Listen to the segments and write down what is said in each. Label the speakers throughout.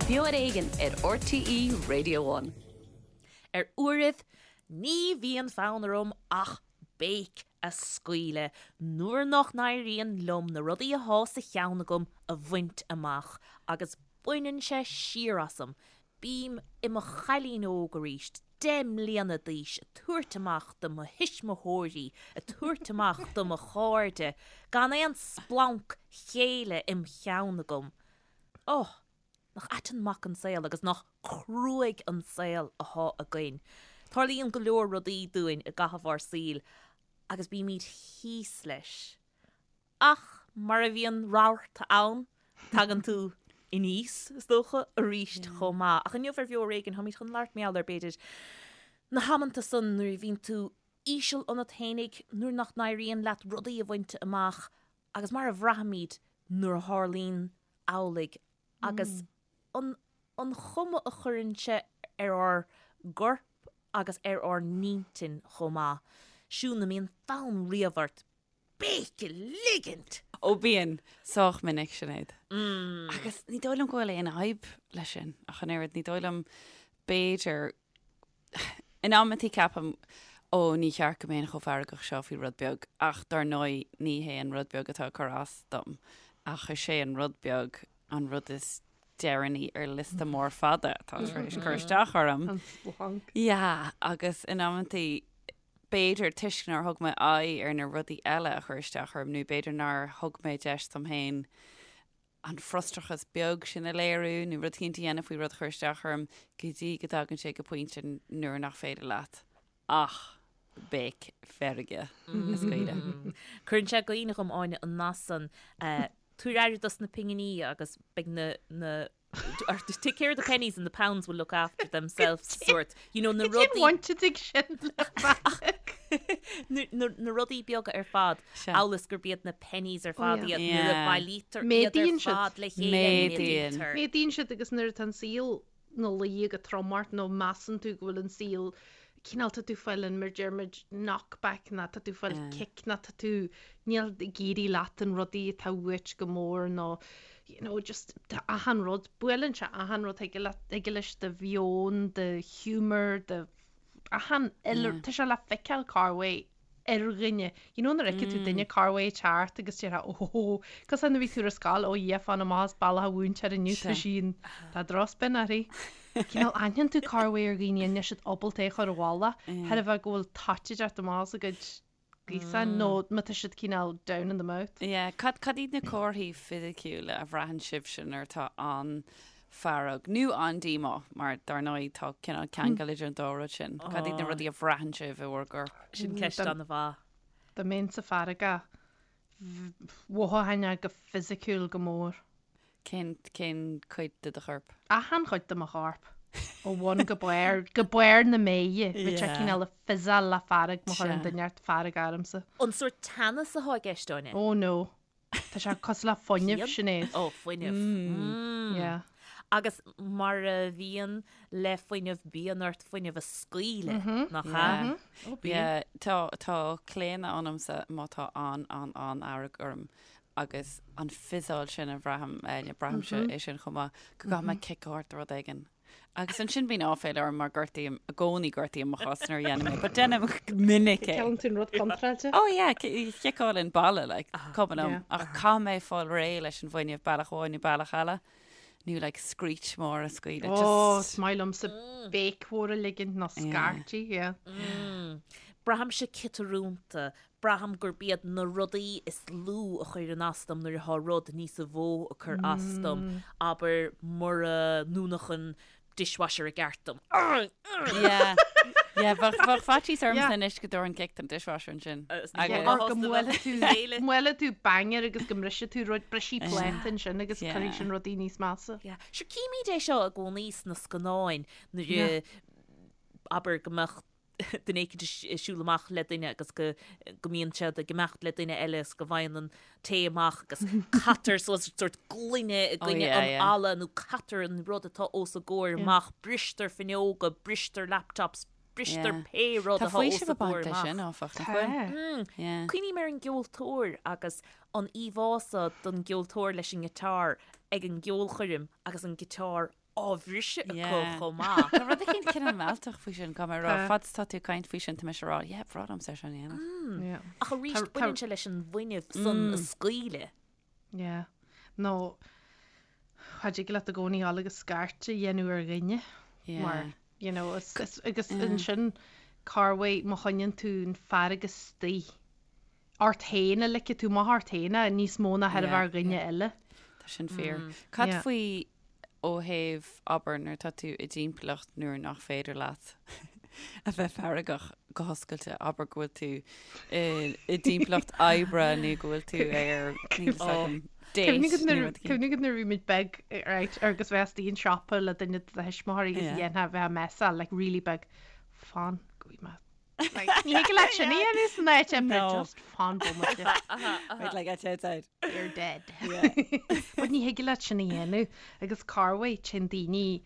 Speaker 1: Beo ar Éigean ar RTÉ Radio One.
Speaker 2: Ar uairibh, ní bhíonn fonn orm ach béic a scaoileadh nuair nach n-éiríonn liom na rudaí athá sa cheann agam a bhaint amach agus baineann sé siar asam Bím i mo chailín óg arís, 10 mbliana d'aois, ag tabhairt amach do mo thuismitheoirí, ag tabhairt amach do mo chairde, gan aon splanc céille im cheann agam. Oh, nach ait an mac an saol agus nach cruaidh an saol athá againn. Tarlaíonn go leor rudaí dúinn i gcaitheamh ár saoil agus bímid thíos leis. Ach mar a bhíonn rabharta ann, tagann tú aníos, is dócha, arís chomh maith. Ach inniu ar Bheo Ar Éigean, táimid chun labhairt mar gheall ar, b'fhéidir, na hamanta san nuair a bhíonn tú íseal ionat fhéinig, nuair nach n-éiríonn leat rudaí a bhaint amach agus mar a bhraithimid nuair a tharlaíonn amhlaidh agus an an chuma a chuireann sé ar ár gcorp agus ar ár n-intinn chomh maith. Siún, an mbíonn fonn riamh ort béic a ligint!
Speaker 3: Ó bíonn, sách minic, Sinéad. Agus ní dóigh liom go bhfuil aon fhadhb leis sin ach an oiread. Ní dóigh liom, b'fhéidir, in amantaí ceapaim, ó ní cheart go mbeinn chomh feargach seo faoi rud beag ach dar ndóigh ní hé an rud beag atá ag cur as dom ach is é an rud beag an rud is deireanaí ar liosta mór fada atá tar éis cur isteach orm.
Speaker 4: An splanc.
Speaker 3: Yeah, agus in amantaí b'fhéidir toisc nár thug mé aghaidh ar na rudaí eile a chuir isteach orm nó b'fhéidir nár thug mé deis dom féin an frustrachas beag sin a léiriú nó rud éicint a dhéanamh faoi rud a chuir isteach orm go dtí go dtagann sé go pointe nuair nach féidir leat ach béic feirge a scaoileadh.
Speaker 2: Cuireann sé i gcuimhne dhom, Áine, an nath san, tabhair aire dos na pinginí agus beidh na, na, Take care of the pennies and the pounds will look after themselves sort. You know, na
Speaker 4: rudaí...
Speaker 2: Cén
Speaker 4: bhaint ag sin le fearg?
Speaker 2: Na rudaí beaga ar fad, amhail is gurb iad na pennies ar fad iad, nuair a bailítear iad ar fad le chéile,
Speaker 3: méadaíonn.
Speaker 4: Méadaíonn siad agus nuair atá an saol ina luí go trom ort nó measann tú go bhfuil an saol cineál tá tú fáil an mar deir muid knockback nó tá tú fáil cic nó tá tú níl ag éirí leat an rudaí atá uait go mór nó you know just tá achan rud buaileann sé achan rud thig leat thig leis do mheon do humour do achan uile tá sé le feiceáil corruair ar dhuine. You know nuair a fheiceann tú duine corruair ag teacht agus déarfá ó cosúil nuair a bhí tú ar scoil ó Dhia fan amach as bealach an mhúinteoir inniu tá sí in tá drochspin uirthi. Cineál aithníonn tú corruair ar dhaoine níl siad ábalta é a chur i bhfolach thar a bheith go bhfuil toit ag teacht amach as a gcuid gaosáin nó má tá siad cineál down in the mouth.
Speaker 3: Yeah, cad cad iad na comharthaí fisiciúla a bhraitheann sibhse nuair atá an-fhearg nó an-díomá, mar dar ndóigh tá cineál ceangal idir an dá rud sin. Cad iad na rudaí a bhraitheann sibh i bhur gcorp?
Speaker 2: Sin ceist an-mhaith.
Speaker 4: Dá mbeinnse feargach, mhothóchainn é go fisiciúil go mór.
Speaker 3: Cén, cén cuid de do chorp?
Speaker 4: Achan chuid de mo chorp. Ó bhun go barr, go barr na méithe. Bheadh sé cineál ag fizzeáil le fearg má chuireann duine inteacht fearg ormsa.
Speaker 2: An sórt teannas atá i gceist, Áine?
Speaker 4: Oh no. Tá sé cosúil le fuinneamh, Sinéad.
Speaker 2: Ó, fuinneamh.
Speaker 4: Yeah.
Speaker 2: Agus mar a bhíonn le fuinneamh, bíonn ort fuinneamh a scaoileadh, nach ea?
Speaker 4: Ó, bíonn.
Speaker 3: Yeah, tá, tá claonadh ionamsa má tá an, an, an-fhearg orm agus an fizzeáil sin a bhraithim, braithimse é sin chomh maith, go gcaithfidh mé cic a thabhairt do rud éigin. Agus ansin bíonn áiféala orm mar gortaím, i gcónaí gortaím mo chos nuair a dhéanaim é, but déanaim go minic é.
Speaker 4: Ciceálann tú an rud contráilte?
Speaker 3: Oh yeah, ciceálann balla, like, cuma liom. Ach caithfidh mé fáil réidh leis an bhfuinneamh bealach amháin nó bealach eile, nó like screech mór a scaoileadh, just.
Speaker 4: Oh, is maith liomsa béic mhór a ligint nó scairtigh, yeah.
Speaker 2: Braithimse ciotrúnta, Braithim gurb iad na rudaí is lú a chuireann as dom nuair atá rud níosa mhó ag cur as dom, abair mura ndúnfadh an dishwasher i gceart dom.
Speaker 3: Yeah. Yeah, bheadh bheadh faitíos ormsa anois go dtabharfainn cic don dishwasher ansin.
Speaker 4: Agus Or go mbuailfidh tú mbuailfidh tú banger agus go mbrisfidh tú rud, brisfidh pláta ansin agus cuirfidh sin rudaí níos measa.
Speaker 2: Yeah. Sure, címid é seo i gcónaí sna scannáin nuair a abair go mbeadh duine éicint ag siúl amach le duine agus go go mbíonn siad ag imeacht le duine eile is go bhfaigheann an té amach agus caitear suas sórt gloine i gcoinne an fhalla nó caitear an rud atá os a gcomhair amach, bristear fuinneoga, bristear laptops, bristear pé rud
Speaker 3: Tá
Speaker 2: atá os
Speaker 3: faoiseamh
Speaker 2: a
Speaker 3: ag baint
Speaker 2: gcomhair
Speaker 3: leis
Speaker 2: amach.
Speaker 3: sin, áfach, nach bhfuil? Yeah.
Speaker 2: Cuimhním ar an gceoltóir agus an íomhá so don gceoltóir leis an ngiotár ag an gceolchoirm agus an giotár. á bhriseadh acu chomh maith.
Speaker 3: Tá rud éicint cineál mealltach faoi sin, caithfidh mé a rá. Fad is atá tú ag caint faoi sin, tá mise ag rá, yeah, bhreá liomsa é sin a
Speaker 2: dhéanamh. Ach arís, baineann sé leis an bhfuinneamh san a scaoileadh.
Speaker 4: Yeah. Nó, cha dtig leat i gcónaí dul agus scairt a dhéanamh ar dhuine. Mar, you know, agus ansin, corruair má choinníonn tú an fearg istigh ort féin a ligfidh tú amach ort féin é níos mó ná thairbhe ar dhuine eile.
Speaker 3: Tá sin fíor. Cad faoi ó thaobh, abair, nuair atá tú i dtimpeallacht nuair nach féidir leat a bheith feargach go hoscailte, abair go bhfuil tú i dtimpeallacht oibre nó go bhfuil tú ar, níl fhios agam, date
Speaker 4: nó rud éigin. Cuimhnigh nuair a bhí muid beag, right, agus bheith istigh an siopa le duine de do thuismitheoirí agus dhéanfá bheith ag messáil, like really big, fan go bhfaighidh mé Ní thig leat sin a dhéanamh san áit oibre, just fan bomaite.
Speaker 3: Wait till I get outside.
Speaker 4: You're dead. But ní thig leat sin a dhéanamh agus corruair téann daoine,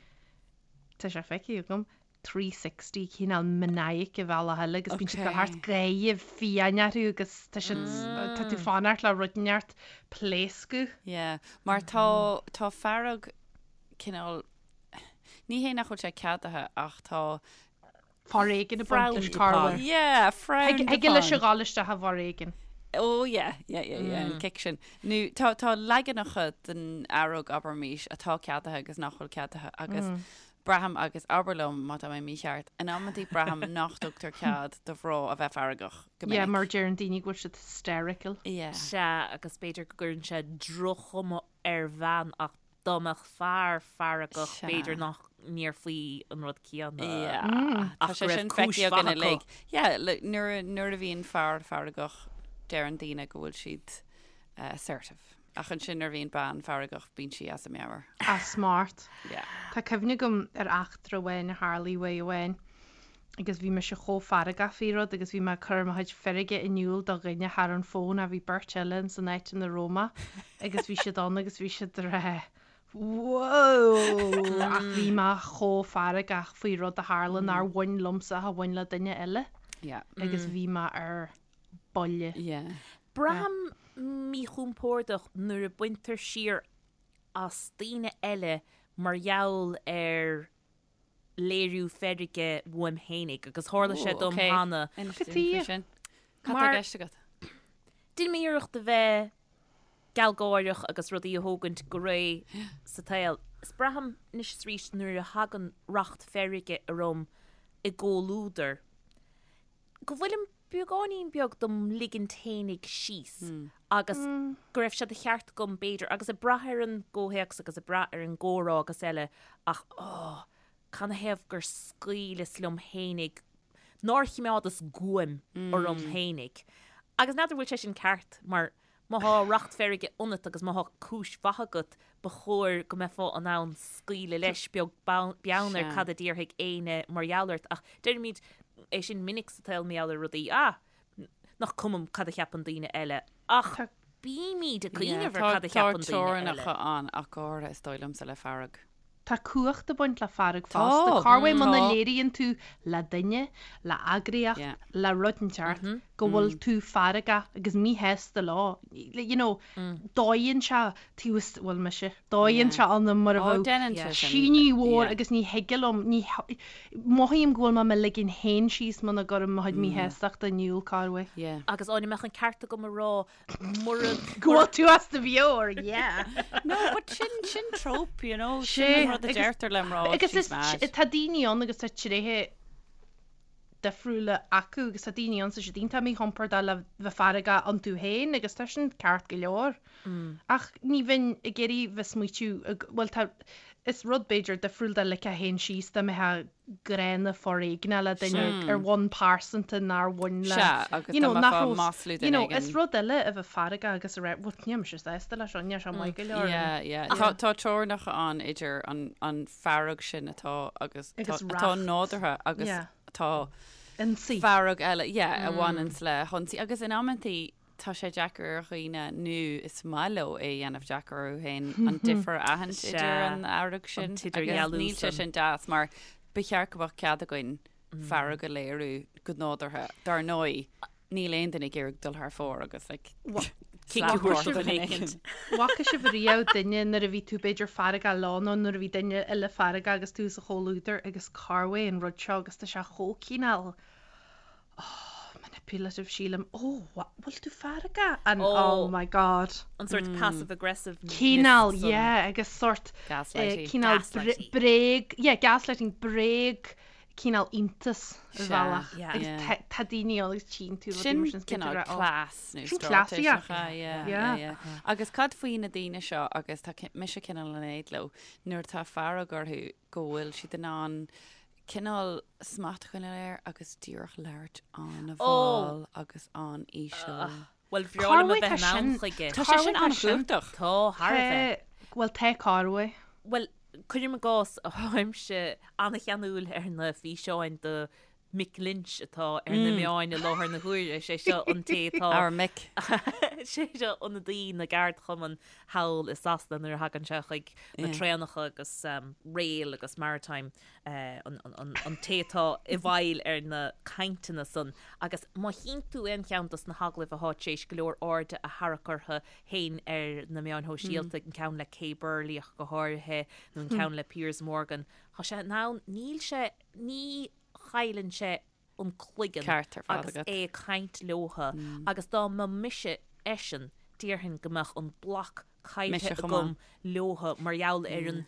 Speaker 4: tá sé feicthe agam, 360 cineál maniac i bhealach eile agus bíonn siad ag dul thart gáire fiáin orthu agus tá siad, tá tú fanacht le rud inteacht pléascadh.
Speaker 3: Yeah, mar tá, tá fearg cineál, ní hé nach bhfuil sé ceadaithe ach tá
Speaker 4: Foréigean ag baint leis
Speaker 2: Frowned upon.
Speaker 4: corruair.
Speaker 3: Yeah, frowned
Speaker 4: Thig leis a
Speaker 3: upon.
Speaker 4: dhul isteach i bhforéigean.
Speaker 3: Oh yeah, yeah, yeah, yeah, an cic sin. Nó tá, tá leaganacha den fhearg, abraimis, atá ceadaithe agus nach bhfuil ceadaithe agus braithim, agus abair liom má tá mé mícheart, in amantaí braithim nach dtugtar cead do mhná a bheith feargach go
Speaker 4: Yeah,
Speaker 3: minic.
Speaker 4: mar deireann daoine go bhfuil siad hysterical.
Speaker 3: Yeah.
Speaker 2: Sea, agus b'fhéidir go gcuireann sé droch-chuma ar bhean ach dá mbeadh fear feargach b'fhéidir nach ndéarfaí an rud céanna.
Speaker 3: Yeah. Tá
Speaker 2: Ach
Speaker 3: sé
Speaker 2: go raibh
Speaker 3: sin
Speaker 2: cúis
Speaker 3: feicthe againn
Speaker 2: mhaith acu.
Speaker 3: uilig. Yeah, like, nuair, nuair a bhíonn fear feargach, deireann daoine go bhfuil siad eh, assertive. Ach ansin nuair a bhíonn bean feargach, bíonn sí as a meabhair.
Speaker 4: As smacht.
Speaker 3: Yeah.
Speaker 4: Tá cuimhne agam ar eachtra amháin a tharlaigh uair amháin agus bhí mise chomh feargach faoi rud agus bhí mé ag cur mo chuid feirge in iúl do dhuine thar an bhfón ach bhí beirt eile ins an áit ina raibh mé agus bhí siad ann agus bhí siad ag rá Whoa! Ach bhí mé chomh feargach faoi rud a tharla nár bhain liomsa ach a bhain le duine eile
Speaker 3: Yeah.
Speaker 4: agus bhí mé ar buile.
Speaker 3: Yeah.
Speaker 2: Braithim míchompordach nuair a baintear siar as daoine eile mar gheall ar léiriú feirge uaim fhéinig agus tharla sé dom cheana.
Speaker 3: Inis dúinn faoi sin. Cad tá i gceist agat?
Speaker 2: Déanaim iarracht a bheith gealgháireach agus rudaí a thógaint go réidh sa tsaol. Is braithim anois is arís nuair a thagann racht feirge orm i gcomhluadar go bhfuilim beagáinín beag dom ligint fhéinig síos agus go raibh sé de cheart agam b'fhéidir, agus ag brath ar an gcomhthéacs agus ag brath ar an gcomhrá agus eile ach oh, canathaobh gur scaoileas liom fhéinig, nár choimeádas guaim orm fhéinig. Agus n'fheadar bhfuil sé sin ceart mar Má thá racht feirge ionat agus má thá cúis mhaith agat, ba chóir go mbeifeá in ann scaoileadh leis, beag beann ar cad a déarfaidh éinne mar gheall ort. Ach deirimid é sin minic sa tsaol mar gheall ar rudaí, ah, nach cuma cad a cheapann daoine eile. Ach bímid ag cuimhneamh ar cad a cheapann daoine eile.
Speaker 3: Tá teorainneacha ann ach go háirithe is dóigh liomsa le fearg.
Speaker 4: Tá cumhacht ag baint le fearg fosta. Corruair muna léiríonn tú le duine, le eagraíocht, le rud inteacht go bhfuil tú feargach agus míshásta leo, you know, dóigheann sé taobh istigh, bhuel mise, dóigheann sé ionam mar a bheadh tine mhór agus ní thig liom, ní, mothaím go bhfuil mé mo ligean féin síos muna gcuirim mo chuid míshástachta in iúl, corruair.
Speaker 2: Agus an mbeadh an ceart agam a rá Mura.
Speaker 4: Go bhfuil tú as do mheabhair, yeah.
Speaker 3: No, but sin, sin trope, you know, sin an rud a deirtear le mná,
Speaker 4: Agus
Speaker 3: she's
Speaker 4: is,
Speaker 3: mad.
Speaker 4: tá daoine ann agus tá tréithe difriúla acu agus tá daoine ann tá siad iontach míchompordach le bheith feargach iontu féin agus tá sin ceart go leor. Ach ní bheinn ag iarraidh bheith smaoitiú, bhuel tá, is rud b'fhéidir difriúil dá ligfeá féin síos dá mbeifeá gránna foréigneach le duine ar bhonn pearsanta nár bhain le
Speaker 3: Sea, agus
Speaker 4: you know,
Speaker 3: dá
Speaker 4: nach
Speaker 3: mbeifeá
Speaker 4: raibh
Speaker 3: maslú
Speaker 4: you
Speaker 3: duine
Speaker 4: know,
Speaker 3: éigin.
Speaker 4: is rud eile a bheith feargach agus a rá bhuel níl mise sásta leis seo, níl sé maith go leor.
Speaker 3: Yeah, yeah. Tá, tá teorainneacha ann idir an, an fearg sin atá agus,
Speaker 4: Agus
Speaker 3: tá, atá
Speaker 4: racht.
Speaker 3: nádúrtha agus
Speaker 4: Yeah.
Speaker 3: tá
Speaker 4: Ionsaí.
Speaker 3: fearg eile, yeah, a bhaineanns le hionsaí agus in amantaí Tá sé deacair ar dhaoine, nó is maith leo é a dhéanamh deacair orthu féin, an difear a aithint idir an fhearg sin agus níl sé sin deas mar ba cheart go mbeadh cead againn fearg a léiriú go nádúrtha. Dar ndóigh, níl aon duine ag iarraidh dul thar fóir agus like
Speaker 2: Cic a thabhairt do dhuine éicint.
Speaker 4: Bhfaca sibh riamh duine nuair a bhí tú b'fhéidir feargach leo nó nuair a bhí duine eile feargach agus tú sa chomhluadar agus cá uaidh an rud seo agus tá sé chomh cineál oh, manipulative sílim oh bhfuil tú feargach and oh, oh my god.
Speaker 2: An sort passive aggressive
Speaker 4: Cineál yeah agus sort eh, cineál bréag yeah gaslighting bréag cineál iontas ar bhealach agus tá daoine ann agus tchíonn tú
Speaker 3: rudaí mar sin cineál cleas nó straitéis yeah. Agus cad faoi na daoine seo agus tá mise cineál in éad leo nuair atá fearg orthu go bhfuil siad in ann cineál smacht a choinneáil air agus díreach labhairt an-mhall agus an-íseal.
Speaker 2: Bhuel, bhreá liom a bheith in ann chuige.
Speaker 3: Tá sé sin an-chumhachtach.
Speaker 2: Tá, thar a bheith.
Speaker 4: Bhuel, tá cá uaidh.
Speaker 2: Bhuel, cuirim i gcás, táimse an-cheanúil ar na físeáin de Mick Lynch atá ar na meáin i láthair na huaire. Sé seo an té atá.
Speaker 3: Our Mick.
Speaker 2: Sé seo ionadaí na gceardchumann thall i Sasana nuair a thagann sé chuig na traenacha agus rail agus maritime. an té atá i bhfeighil ar na cainteanna san agus má chíonn tú aon cheann dos na hagallaimh athá tar éis go leor airde a tharrac orthu féin ar na meáin shóisialta, an ceann le Kay Burley ach go háirithe nó an ceann le Piers Morgan, tá sé in ann, níl sé, ní chailleann sé an cloigeann
Speaker 3: Ceart ar fad
Speaker 2: agus
Speaker 3: agat.
Speaker 2: é ag caint leotha agus dá mba mise eisean déarfainn go mbeadh an block
Speaker 3: Mise
Speaker 2: caillte
Speaker 3: chomh
Speaker 2: agam
Speaker 3: maith.
Speaker 2: leotha mar gheall ar an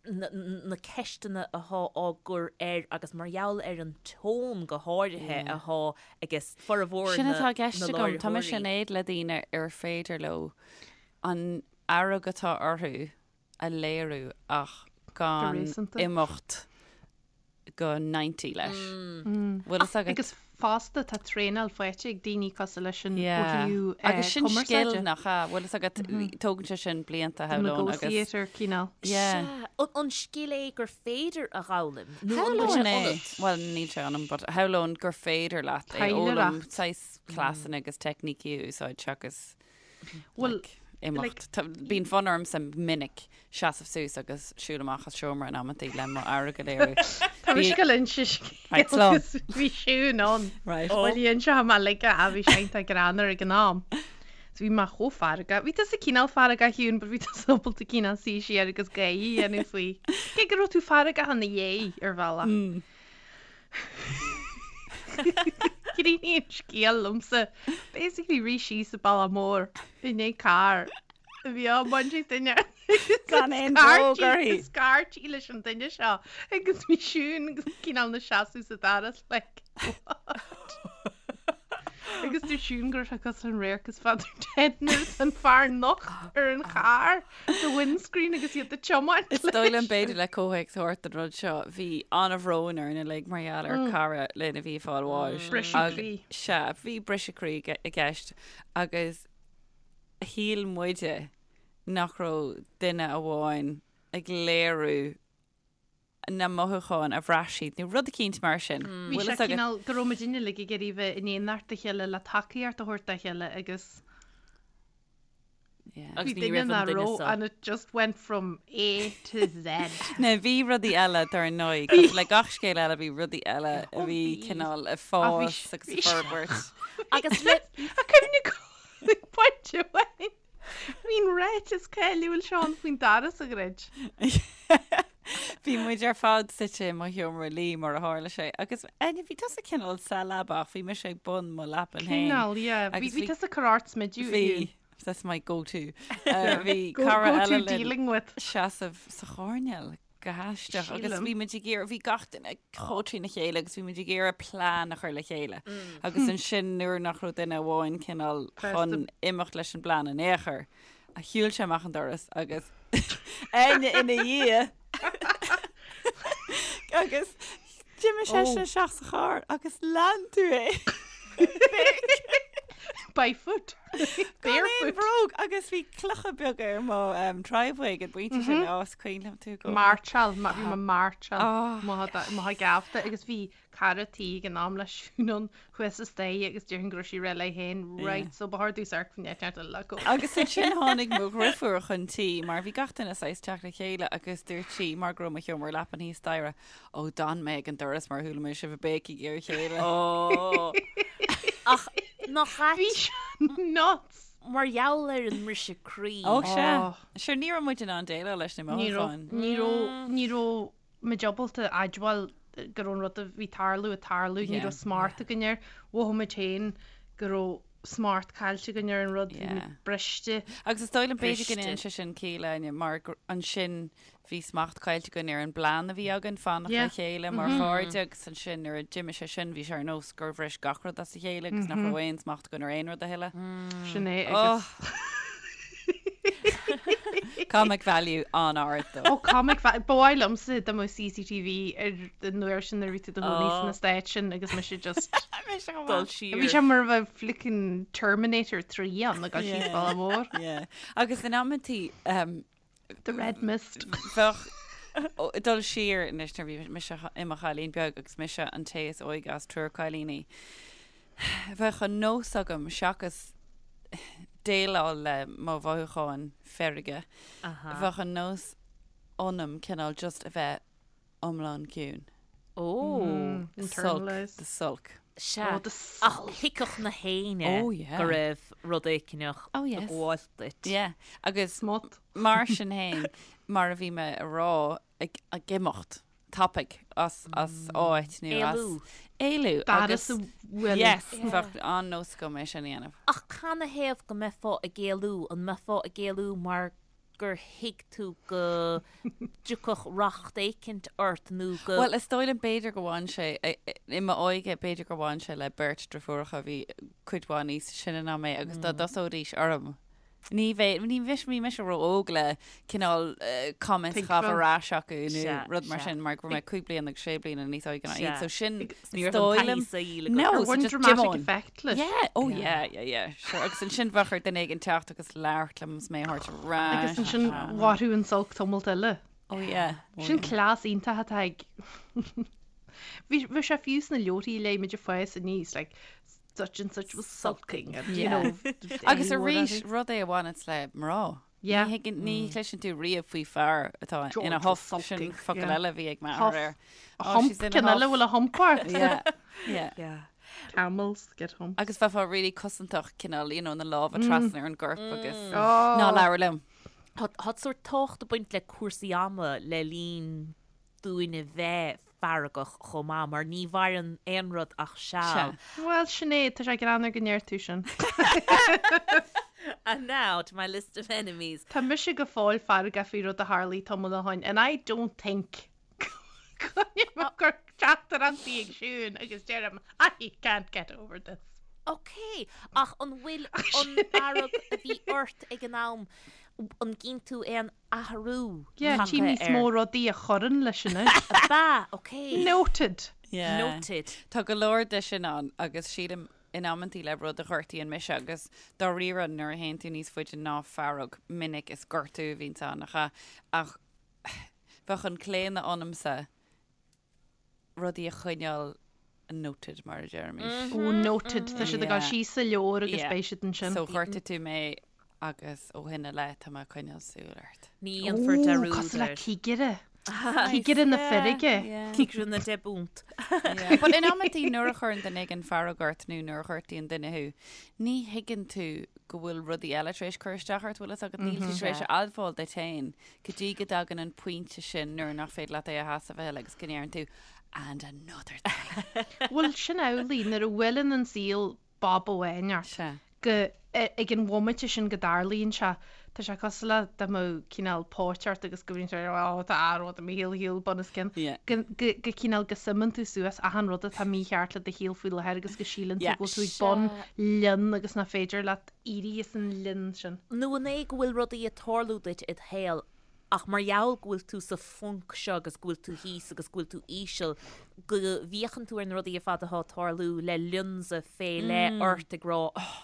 Speaker 2: na ceisteanna athá á gcur air agus mar gheall ar an tón go háirithe athá aige formhór
Speaker 3: Sin
Speaker 2: na
Speaker 3: atá i gceist agam. Tá mise
Speaker 2: láithreoirí.
Speaker 3: in éad le daoine ar féidir leo an fhearg atá orthu a léiriú ach gan
Speaker 4: réasúnta.
Speaker 3: imeacht go 90 leis. Bhfuil fhios agat?
Speaker 4: Agus fosta tá traenáil faighte ag daoine cosúil leis sin ó
Speaker 3: Yeah.
Speaker 4: thaobh
Speaker 3: Agus sin scil
Speaker 4: cumarsáide.
Speaker 3: nach ea? Bhfuil fhios agat, tógann sé sin blianta, shamhlóinn, agus.
Speaker 4: Negotiator cineál.
Speaker 3: Yeah.
Speaker 2: Sea. An, an scil é gur féidir a dh'fhoghlaim? Nó an bhfuil sé
Speaker 3: Shamhlóinn é.
Speaker 2: ionat?
Speaker 3: Bhuel, níl sé ionam, but shamhlóinn gur féidir leat é a fhoghlaim,
Speaker 4: Taidhleoireacht.
Speaker 3: saghas cleasanna agus teicnící a úsáid seachas
Speaker 4: Bhuel,
Speaker 3: like, imeacht. Tá- Bíonn fonn ormsa minic seasamh suas agus siúl amach as seomra in amantaí le mo fhearg a léiriú.
Speaker 4: Tá mise ag dul inse
Speaker 3: Right,
Speaker 4: scéal
Speaker 3: slán.
Speaker 4: agus bhí Siún ann.
Speaker 3: Right.
Speaker 4: Bhuel, inseoidh mé like a bhí sé iontach greannmhar ag an am. So bhí mé chomh feargach. Bhí tusa cineál feargach Shiún, but bhí tusa ábalta cineál suí siar agus gáire a dhéanamh faoi. Cé go raibh tú feargach ina dhiaidh ar bhealach. Críochnaíonn an scéal liomsa. Basically rith síos an bealach mór i ndiaidh carr a bhí á mbaint ag duine.
Speaker 3: Gan aon bhróg uirthi.
Speaker 4: Scairtí leis an duine seo agus bhí Siún agus cineál ina seasamh sa doras like what? Agus dúirt Siún go raibh sé cosúil an radharc is Father Ted nuair atá an fear nocht ar an charr sa windscreen agus iad ag tiomáint
Speaker 3: Is dóigh liom b'fhéidir le comhthéacs a thabhairt don rud seo, bhí an-bhrón orainn uilig mar gheall ar cara linn a bhí ag fáil bháis.
Speaker 4: Briseadh croí.
Speaker 3: Sea, bhí briseadh croí i gceist agus shíl muide nach raibh duine amháin ag léiriú na mothúcháin a bhraith siad nó rud eicínt mar sin.
Speaker 4: Bhí
Speaker 3: Bhfuil
Speaker 4: sé
Speaker 3: fhios agat?
Speaker 4: cineál go raibh muid uilig ag iarraidh bheith in éineacht a chéile le tacaíocht a thabhairt dá chéile agus
Speaker 3: Yeah.
Speaker 2: Agus
Speaker 4: bhí
Speaker 2: ní
Speaker 4: duine
Speaker 2: raibh an
Speaker 4: nach
Speaker 2: duine
Speaker 4: raibh
Speaker 2: seo.
Speaker 4: and it just went from A to Z.
Speaker 3: Now bhí rudaí eile dar ndóigh, cosúil le gach scéal eile bhí rudaí eile a
Speaker 4: Ó,
Speaker 3: bhí
Speaker 4: bhí.
Speaker 3: cineál ag
Speaker 4: Ach bhí
Speaker 3: fás
Speaker 4: s-
Speaker 3: agus
Speaker 4: bhí
Speaker 3: ag
Speaker 4: s-
Speaker 3: forbairt.
Speaker 2: Agus le
Speaker 4: A cuimhne go pointe amháin. Bhí an ráiteas cáiliúil seo ann faoin doras a dhruid.
Speaker 3: Bhí muid ar fad suite i mo sheomra luí mar a tharla sé agus Áine, bhí tusa cineál sa leaba ach bhí mise ag bun mo leapan féin.
Speaker 4: Cineál, yeah. Bhí
Speaker 3: Agus
Speaker 4: bhí
Speaker 3: bhí-
Speaker 4: tusa ag cur ort smideadh.
Speaker 3: Bhí, that's my go-to. Uh, Bhí
Speaker 4: Go,
Speaker 3: cara
Speaker 4: go to
Speaker 3: eile linn
Speaker 4: dealing with.
Speaker 3: seasamh sa choirnéal go haisteach agus
Speaker 4: Sílim.
Speaker 3: bhí muid ag iarraidh, bhí gach duine chomh trína chéile agus bhí muid ag iarraidh plean a chur le chéile. Agus ansin nuair nach raibh duine amháin cineál chun imeacht leis an bplean in aon chor, a shiúil sé amach an doras agus Áine ina dhiaidh agus d'imigh seisean isteach sa charr agus lean tú é.
Speaker 4: By foot.
Speaker 3: Gan aon
Speaker 4: Barefoot.
Speaker 3: bhróg agus bhí clocha beaga ar mo um, driveway ag an bpointe sin mm is cuimhin liom tú go.
Speaker 4: Mairteáil, ma- bhí mé mairteáil
Speaker 3: Ah.
Speaker 4: mo ghabhta agus bhí cara tí ag an am le Siún ann thuas sa staighre agus déarfainn go raibh sí réidh léi féin, right, so ba chóir domh amharc faoin eitleán eile le go.
Speaker 3: Agus ansin tháinig mo dhriofúr chun tí mar bhí gach duine saghas teacht le chéile agus dúirt sí mar go raibh mo sheomra leapan thíos staighre, Ó, d'fhan mé ag an doras mar chuala mé sibh ag béicigh ar a chéile.
Speaker 2: Ó. Ach nach
Speaker 4: Bhí
Speaker 2: ait
Speaker 4: sé nuts.
Speaker 2: Mar gheall ar an mbriseadh croí.
Speaker 3: Ó sea. Sure, ní raibh muid in ann déileáil leis na mothúcháin.
Speaker 4: Ní raibh, ní raibh muid ábalta admháil go raibh an rud a bhí ag tarlú ag tarlú, ní raibh smacht againn air. Mhothaigh muid féin go raibh smacht caillte againn ar an rud, bhí muid briste.
Speaker 3: Agus is dóigh liom b'fhéidir go ndéanann sé sin ciall, Áine, mar ansin bhí smacht caillte againn ar an bplean a bhí againn fanacht le chéile mar chairde agus ansin nuair a d'imigh sé sin bhí sé ar nós gur bhris gach rud as a chéile agus nach raibh aon smacht againn ar aon rud a thuilleadh.
Speaker 4: Sin é agus.
Speaker 3: Comic value an-ard
Speaker 4: dó. Ó comic value, ba mhaith liomsa dá mbeadh CCTV ar an uair sin nuair a bhí tú i do chónaí sna Stáit sin agus mise just
Speaker 2: Dul siar.
Speaker 4: Bhí sé mar a bheadh flickin Terminator 3 ann ag dul síos bealach mór.
Speaker 3: Yeah. Agus in amantaí
Speaker 4: The Red Mist.
Speaker 3: Bheadh dul siar anois nuair bhí mise i mo chailín beag agus mise an té is óige as triúr cailíní. Bheadh an nós agam seachas déileáil le mo mhothúcháin feirge, bheadh an nós ionam cineál just a bheith iomlán ciúin.
Speaker 2: Ó.
Speaker 3: Sulk, the sulk.
Speaker 2: Sea. Ach thuigfeadh na héinne
Speaker 3: Oh, yeah.
Speaker 2: go raibh rud éigineach
Speaker 3: Oh,
Speaker 2: ag
Speaker 3: yes.
Speaker 2: gabháil duit.
Speaker 3: Yeah. Agus
Speaker 4: Smut.
Speaker 3: mar sin féin, mar a bhí mé a rá, ag, ag imeacht tapaidh as, as áit nó as...
Speaker 2: Éalú.
Speaker 3: Éalú.
Speaker 4: Agus
Speaker 3: Agus,
Speaker 4: a bhfuil.
Speaker 3: yes, bheadh an-nós agam é sin a dhéanamh.
Speaker 2: Ach canathaobh go mbeifeá ag éalú? An mbeifeá ag éalú mar gur thuig tú go dtiocfadh racht éicint ort nó go.
Speaker 3: Bhuel, is dóigh liom b'fhéidir go bhain sé, i m'óige, b'fhéidir gur bhain sé le beirt driofúracha a bhí cuid mhaith níos sine ná mé agus dá dtosóidís orm, ní bheidh, ní bheidh, bhí mise ró-óg le cineál comments a chaitheamh ar ais acu nó rud mar sin mar go raibh mé cúig bliana agus sé bliana níos óige ná iad. So sin,
Speaker 2: Ní raibh an taithí saoil agat.
Speaker 3: No,
Speaker 4: Ar
Speaker 3: so
Speaker 4: bhain
Speaker 3: just
Speaker 4: dramatic
Speaker 3: Jim on.
Speaker 4: effect leis?
Speaker 3: Yeah, oh yeah, yeah, yeah, sure. Agus ansin bheadh ar duine éigin teacht agus labhairt liom is mé a thabhairt ar ais.
Speaker 4: Agus ansin mhairfeadh an sulk tamalt eile.
Speaker 3: Oh yeah. Oh
Speaker 4: Sin
Speaker 3: yeah.
Speaker 4: cleas iontach atá ag Bhí bhí sé fiú sna leabharthaí a léigh muid ag fás aníos, like, such and such was sulking and, you
Speaker 3: Yeah.
Speaker 4: know,
Speaker 3: Agus arís, rud é a bhaineanns le mná.
Speaker 4: Yeah.
Speaker 3: Ní thuigeann, ní chloiseann tú riamh faoi fear atá ina
Speaker 4: George
Speaker 3: huff,
Speaker 4: was
Speaker 3: sin
Speaker 4: sulking,
Speaker 3: focal
Speaker 4: yeah.
Speaker 3: eile a bhí ag m'athair
Speaker 4: Huff.
Speaker 3: air.
Speaker 4: A
Speaker 3: Oh,
Speaker 4: hump,
Speaker 3: she's in a
Speaker 4: ceann eile
Speaker 3: huff.
Speaker 4: bhfuil a hump ort.
Speaker 3: Yeah, yeah.
Speaker 4: Camels get humps.
Speaker 3: Agus bheifeá really cosantach cineál, you know, na lámha trasna ar an gcorp agus
Speaker 4: Oh.
Speaker 3: ná labhair liom.
Speaker 2: Tá tá sórt tábhacht ag baint le cúrsaí ama le linn dúinn a bheith feargach chomh maith, mar ní mhaireann aon rud ach seal.
Speaker 4: Bhuel, Sinéad, tá sé greannmhar go ndeir tú sin.
Speaker 2: And now to my list of enemies.
Speaker 4: Tá mise go fóill feargach faoi rud a tharlaigh tamall ó shin and I don't think go ag cur teachtaireachtaí ag Siún agus deirim I can't get over this.
Speaker 2: Ok, ach an bhfuil an fhearg a bhí ort ag an am, an gcíonn tú aon athrú
Speaker 4: Yeah,
Speaker 2: tagtha
Speaker 4: tchím níos
Speaker 2: air?
Speaker 4: mó rudaí a chuireann leis anois.
Speaker 2: Ab ea? Ok.
Speaker 4: Noted.
Speaker 3: Yeah.
Speaker 2: Noted.
Speaker 3: Tá go leor de sin ann agus sílim in amantaí le rud a ghortaíonn mise agus dáiríre nuair a théann tú níos faide ná fearg minic is gortú a bhíonns ann nach ea? Ach bheadh an claonadh ionamsa rudaí a choinneáil noted mar a deirimís.
Speaker 4: Ó noted, tá siad ag dul síos sa leabhar agus
Speaker 3: Yeah.
Speaker 4: beidh siad ansin.
Speaker 3: So ghortaigh tú mé agus ó shin i leith tá mé ag coinneáil súil ort.
Speaker 2: Ní dhéanfar
Speaker 4: Ó,
Speaker 2: dearúd
Speaker 4: cosúil le
Speaker 2: air.
Speaker 4: cigire. Cigire na feirge.
Speaker 2: Cigire na deich bpunt.
Speaker 3: But in amantaí nuair a chuireann duine éigin fearg ort nó nuair a ghortaíonn duine thú, ní thuigeann tú go bhfuil rudaí eile tar éis cur isteach ort, bhfuil fhios agat, níl tú tar éis a admháil duit féin go dtí go dtagann an pointe sin nuair nach féidir leat é a sheasamh a thuilleadh agus go ndeireann tú and another thing.
Speaker 4: Bhuel, sin amhlaidh, nuair a bhuaileann an saol bob amháin ort,
Speaker 3: Sea.
Speaker 4: go, ag an bhomaite sin go dtarlaíonn sé, tá sé cosúil le dá mbeadh cineál póit ort agus go mbíonn sé, oh, tá rud i mo shaol shaol bunoscionn,
Speaker 3: Yeah.
Speaker 4: go, go, go cineál go suimeann tú suas achan rud atá mícheart le do shaol faoi láthair agus go síleann tú
Speaker 3: Yeah.
Speaker 4: go bhfuil tú ag bun linn agus nach féidir leat éirí as an linn sin.
Speaker 2: Nó an é go bhfuil rudaí ag tarlú duit id shaol ach mar gheall go bhfuil tú sa phunc seo agus go bhfuil tú thíos agus go bhfuil tú íseal, go bhféachann tú ar na rudaí ar fad atá ag tarlú le lionsa fé leith ort ag rá oh,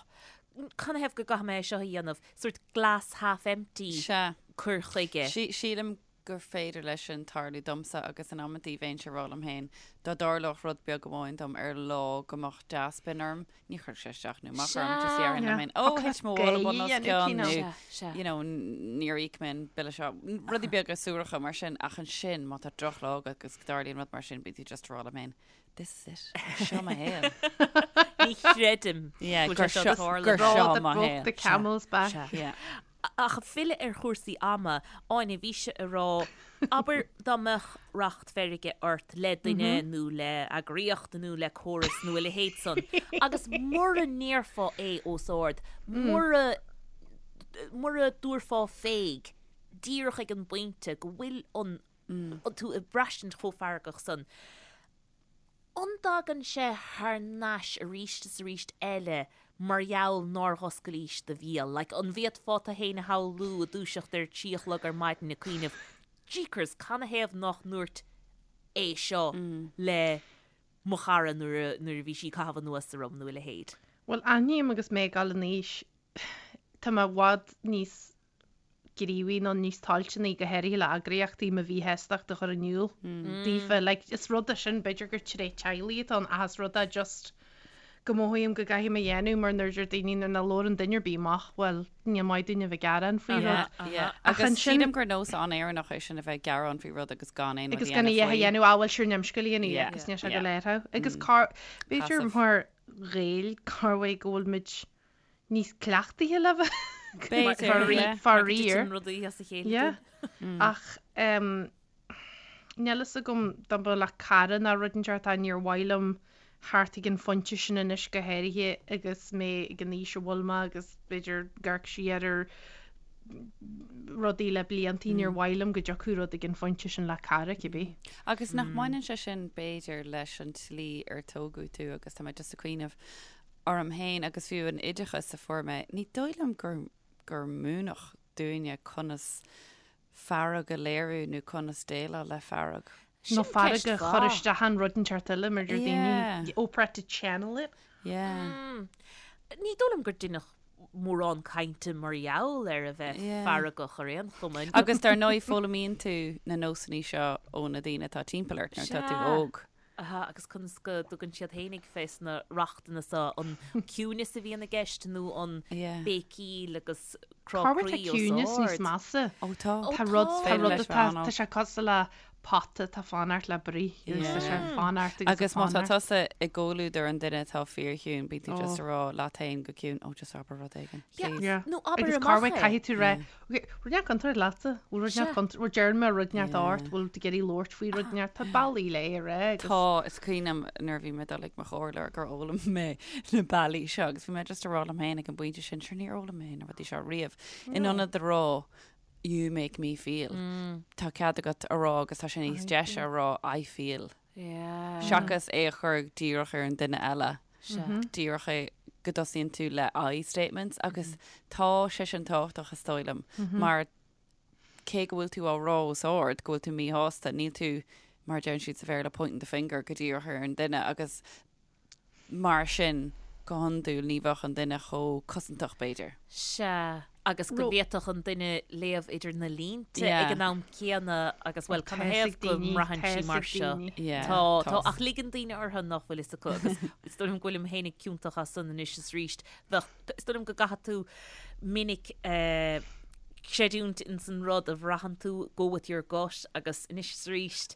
Speaker 2: canathaobh go gcaithfidh mé é seo a dhéanamh? Sort glass half empty
Speaker 3: Sea.
Speaker 2: cur chuige.
Speaker 3: Sílim. gur féidir leis sin tarlú domsa agus in amantaí bheinnse ag rá liom féin dá dtarlódh rud beag amháin dom ar lá go mbeadh dea-spion orm, ní chuirfeadh sé isteach nó amach orm, just déarfainn liom féin, ó, thit mo mhála bun os cionn nó, you know, níor íoc mé an bille seo, rudaí beaga suaracha mar sin ach ansin má tá drochlá agat agus go dtarlaíonn rud mar sin bíonn tú just ag rá leat féin, this is it, seo mo shaol.
Speaker 2: Ní chreidim
Speaker 3: Yeah,
Speaker 2: go bhfuil sé
Speaker 3: gur
Speaker 2: seo
Speaker 3: seo-
Speaker 2: ag tarlú.
Speaker 3: gur seo
Speaker 4: Straw that
Speaker 3: mo
Speaker 4: broke
Speaker 3: shaol.
Speaker 4: the camel's back.
Speaker 2: Sea.
Speaker 3: Yeah.
Speaker 2: Ach filleadh ar chúrsaí ama, Áine, bhís ag rá, abair dá mbeadh racht feirge ort le duine nó le eagraíocht nó le córas nó a leithéid san, agus mura ndéarfá é os ard, mura, mura dtabharfá féig díreach ag an bpointe go bhfuil an, tú ag braistint chomh feargach san, An dtagann sé thar n-ais arís is arís eile mar gheall nár dh'oscailís do bhéal? Like, an bhféadfá tú fhéin a shamhlú ag dúiseacht ar 3 a chlog ar maidin ag cuimhneamh, Jeekers, canathaobh nach ndúirt é seo le mo chara nuair a, nuair a bhí sí ag caitheamh anuas orm nó a leithéid?
Speaker 4: Bhuel, aithním agus mé ag dul in aois, tá mé i bhfad níos gníomhaí nó níos toilteanaí, go háirithe le eagraíochtaí, mo mhíshástacht a chur in iúl daofa. Like, is rud é sin, b'fhéidir gur tréith teaghlaigh atá ann ach is rud é just go mothaím go gcaithfidh mé a dhéanamh mar nuair a deir daoine nuair nach labhrann duine ar bith amach, bhuel, ní maith dúinn a bheith ag gearán faoi rud.
Speaker 3: Yeah.
Speaker 4: Ach
Speaker 3: Agus
Speaker 4: ansin-
Speaker 3: sílim gur nós an-Éireannach é sin a bheith ag gearán faoi rud agus gan aon rud
Speaker 4: Agus
Speaker 3: a
Speaker 4: gan a
Speaker 3: dhéanamh
Speaker 4: dhath a
Speaker 3: faoi.
Speaker 4: dhéanamh, ah, bhuel, sure níl aon scéal a dhéanamh
Speaker 3: Yeah.
Speaker 4: agus níl sé
Speaker 3: Yeah.
Speaker 4: go léir thú. Agus cá, b'fhéidir
Speaker 3: Passive.
Speaker 4: mar Ghaeil, cá bhfuil go bhfuil muid níos cleachtaithe le bheith
Speaker 3: B'fhéidir,
Speaker 4: faraor.
Speaker 2: rudaí as a chéile.
Speaker 4: Yeah. Ach níl fhios agam dá mba le cara ná rud inteacht tá níor mhaith liom theacht ag an phointe sin anois go háirithe agus mé ag an aois a bhfuil mé agus b'fhéidir ag amharc siar ar rudaí le bliantaí níor mhaith liom go dtiocfadh rud ag an phointe sin le cara cibé.
Speaker 3: Agus nach mbaineann sé sin b'fhéidir leis an tslí ar tógadh tú agus tá mé just ag cuimhneamh orm féin agus fiú an oideachas a fuair mé, ní dóigh liom gur, gur múineadh dúinne conas fearg a léiriú nó conas déileáil le fearg.
Speaker 4: Nó
Speaker 2: Sin
Speaker 4: fearg
Speaker 2: ceist
Speaker 4: a chur
Speaker 2: mhaith.
Speaker 4: isteach in rud inteacht eile mar deir daoine,
Speaker 3: Yeah.
Speaker 4: Oprah to channel it.
Speaker 3: Yeah.
Speaker 2: Ní dóigh liom gur deineadh mórán cainte mar gheall ar a bheith
Speaker 3: Yeah.
Speaker 2: feargach ar aon chuma.
Speaker 3: Agus dar ndóigh foghlaimíonn tú na nósanna seo ó na daoine atá timpeall ort nuair atá tú
Speaker 2: Sea.
Speaker 3: óg.
Speaker 2: Aha, agus conas go dtugann siad fhéinig fés na rachtanna so, an ciúineas a bhíonn i gceist nó an béicíl agus crá
Speaker 4: Cá bhfuil
Speaker 2: croí
Speaker 4: tá
Speaker 2: os
Speaker 4: ciúineas níos
Speaker 2: ard?
Speaker 4: measa?
Speaker 3: Ó tá.
Speaker 2: Ó
Speaker 4: Tá rud,
Speaker 2: tá.
Speaker 4: tá
Speaker 3: Féidir
Speaker 4: rud
Speaker 3: leis
Speaker 4: atá,
Speaker 3: bheith
Speaker 4: tá sé cosúil le pota atá fanacht le bruith agus tá sé fanacht agus
Speaker 3: Agus má tá
Speaker 4: fanacht.
Speaker 3: tusa i gcomhluadar an duine atá fíorchiúin, bíonn tú just
Speaker 4: Ó.
Speaker 3: ag rá leat féin go ciúin, oh just abair rud éigin,
Speaker 2: Yeah.
Speaker 3: please.
Speaker 4: Yeah.
Speaker 2: Nó abair
Speaker 4: Agus cá
Speaker 2: amach
Speaker 4: bhfuil
Speaker 2: é.
Speaker 4: caithfidh tú rá, Ok, rud inteacht contúirt leatsa, bhfuil rud inteacht contúirt, bhfuil deireann mé rud inteacht ort, bhfuil tú ag iarraidh labhairt faoi rud inteacht, tá bealaí le é a rá agus.
Speaker 3: Tá, is cuimhin liom nuair a bhí mé ag dul ag mo chomhairleoir gur fhoghlaim mé na bealaí seo agus bhí mé just ag rá liom féin ag an bpointe sin, sure níor fhoghlaim mé na rudaí seo riamh. In ionad a rá you make me feel, tá cead agat a rá agus tá sé níos deise a rá I feel. Seachas é a chur díreach ar an duine eile. Díreach é go dtosaíonn tú le I statements agus tá sé sin tábhachtach is dóigh liom mar cé go bhfuil tú á rá os ard go bhfuil tú míshásta, níl tú, mar a deireann siad sa Bhéarla, pointing the finger go díreach ar an duine agus Mar sin, go hiondúil, ní bheadh an duine chomh cosantach, b'fhéidir.
Speaker 2: Sea, agus go bhféadfadh an duine léamh idir na línte
Speaker 3: Yeah.
Speaker 2: ag an am céanna agus, bhuel,
Speaker 4: Tá
Speaker 2: canathaobh
Speaker 4: fhios ag
Speaker 2: go
Speaker 4: daoine,
Speaker 2: mbraitheann
Speaker 4: tá
Speaker 2: sí
Speaker 4: fhios
Speaker 2: mar
Speaker 4: ag
Speaker 2: seo.
Speaker 4: daoine.
Speaker 3: Yeah,
Speaker 2: Tá, tá,
Speaker 3: tá.
Speaker 2: ach ligeann daoine orthu nach bhfuil fhios acu agus is dóigh liom go bhfuilim féinig ciontach as san anois is arís. Bheadh, is dóigh liom go gcaithfidh tú minic eh, creidiúint ins an rud a bhraitheann tú, go with your gut agus anois is arís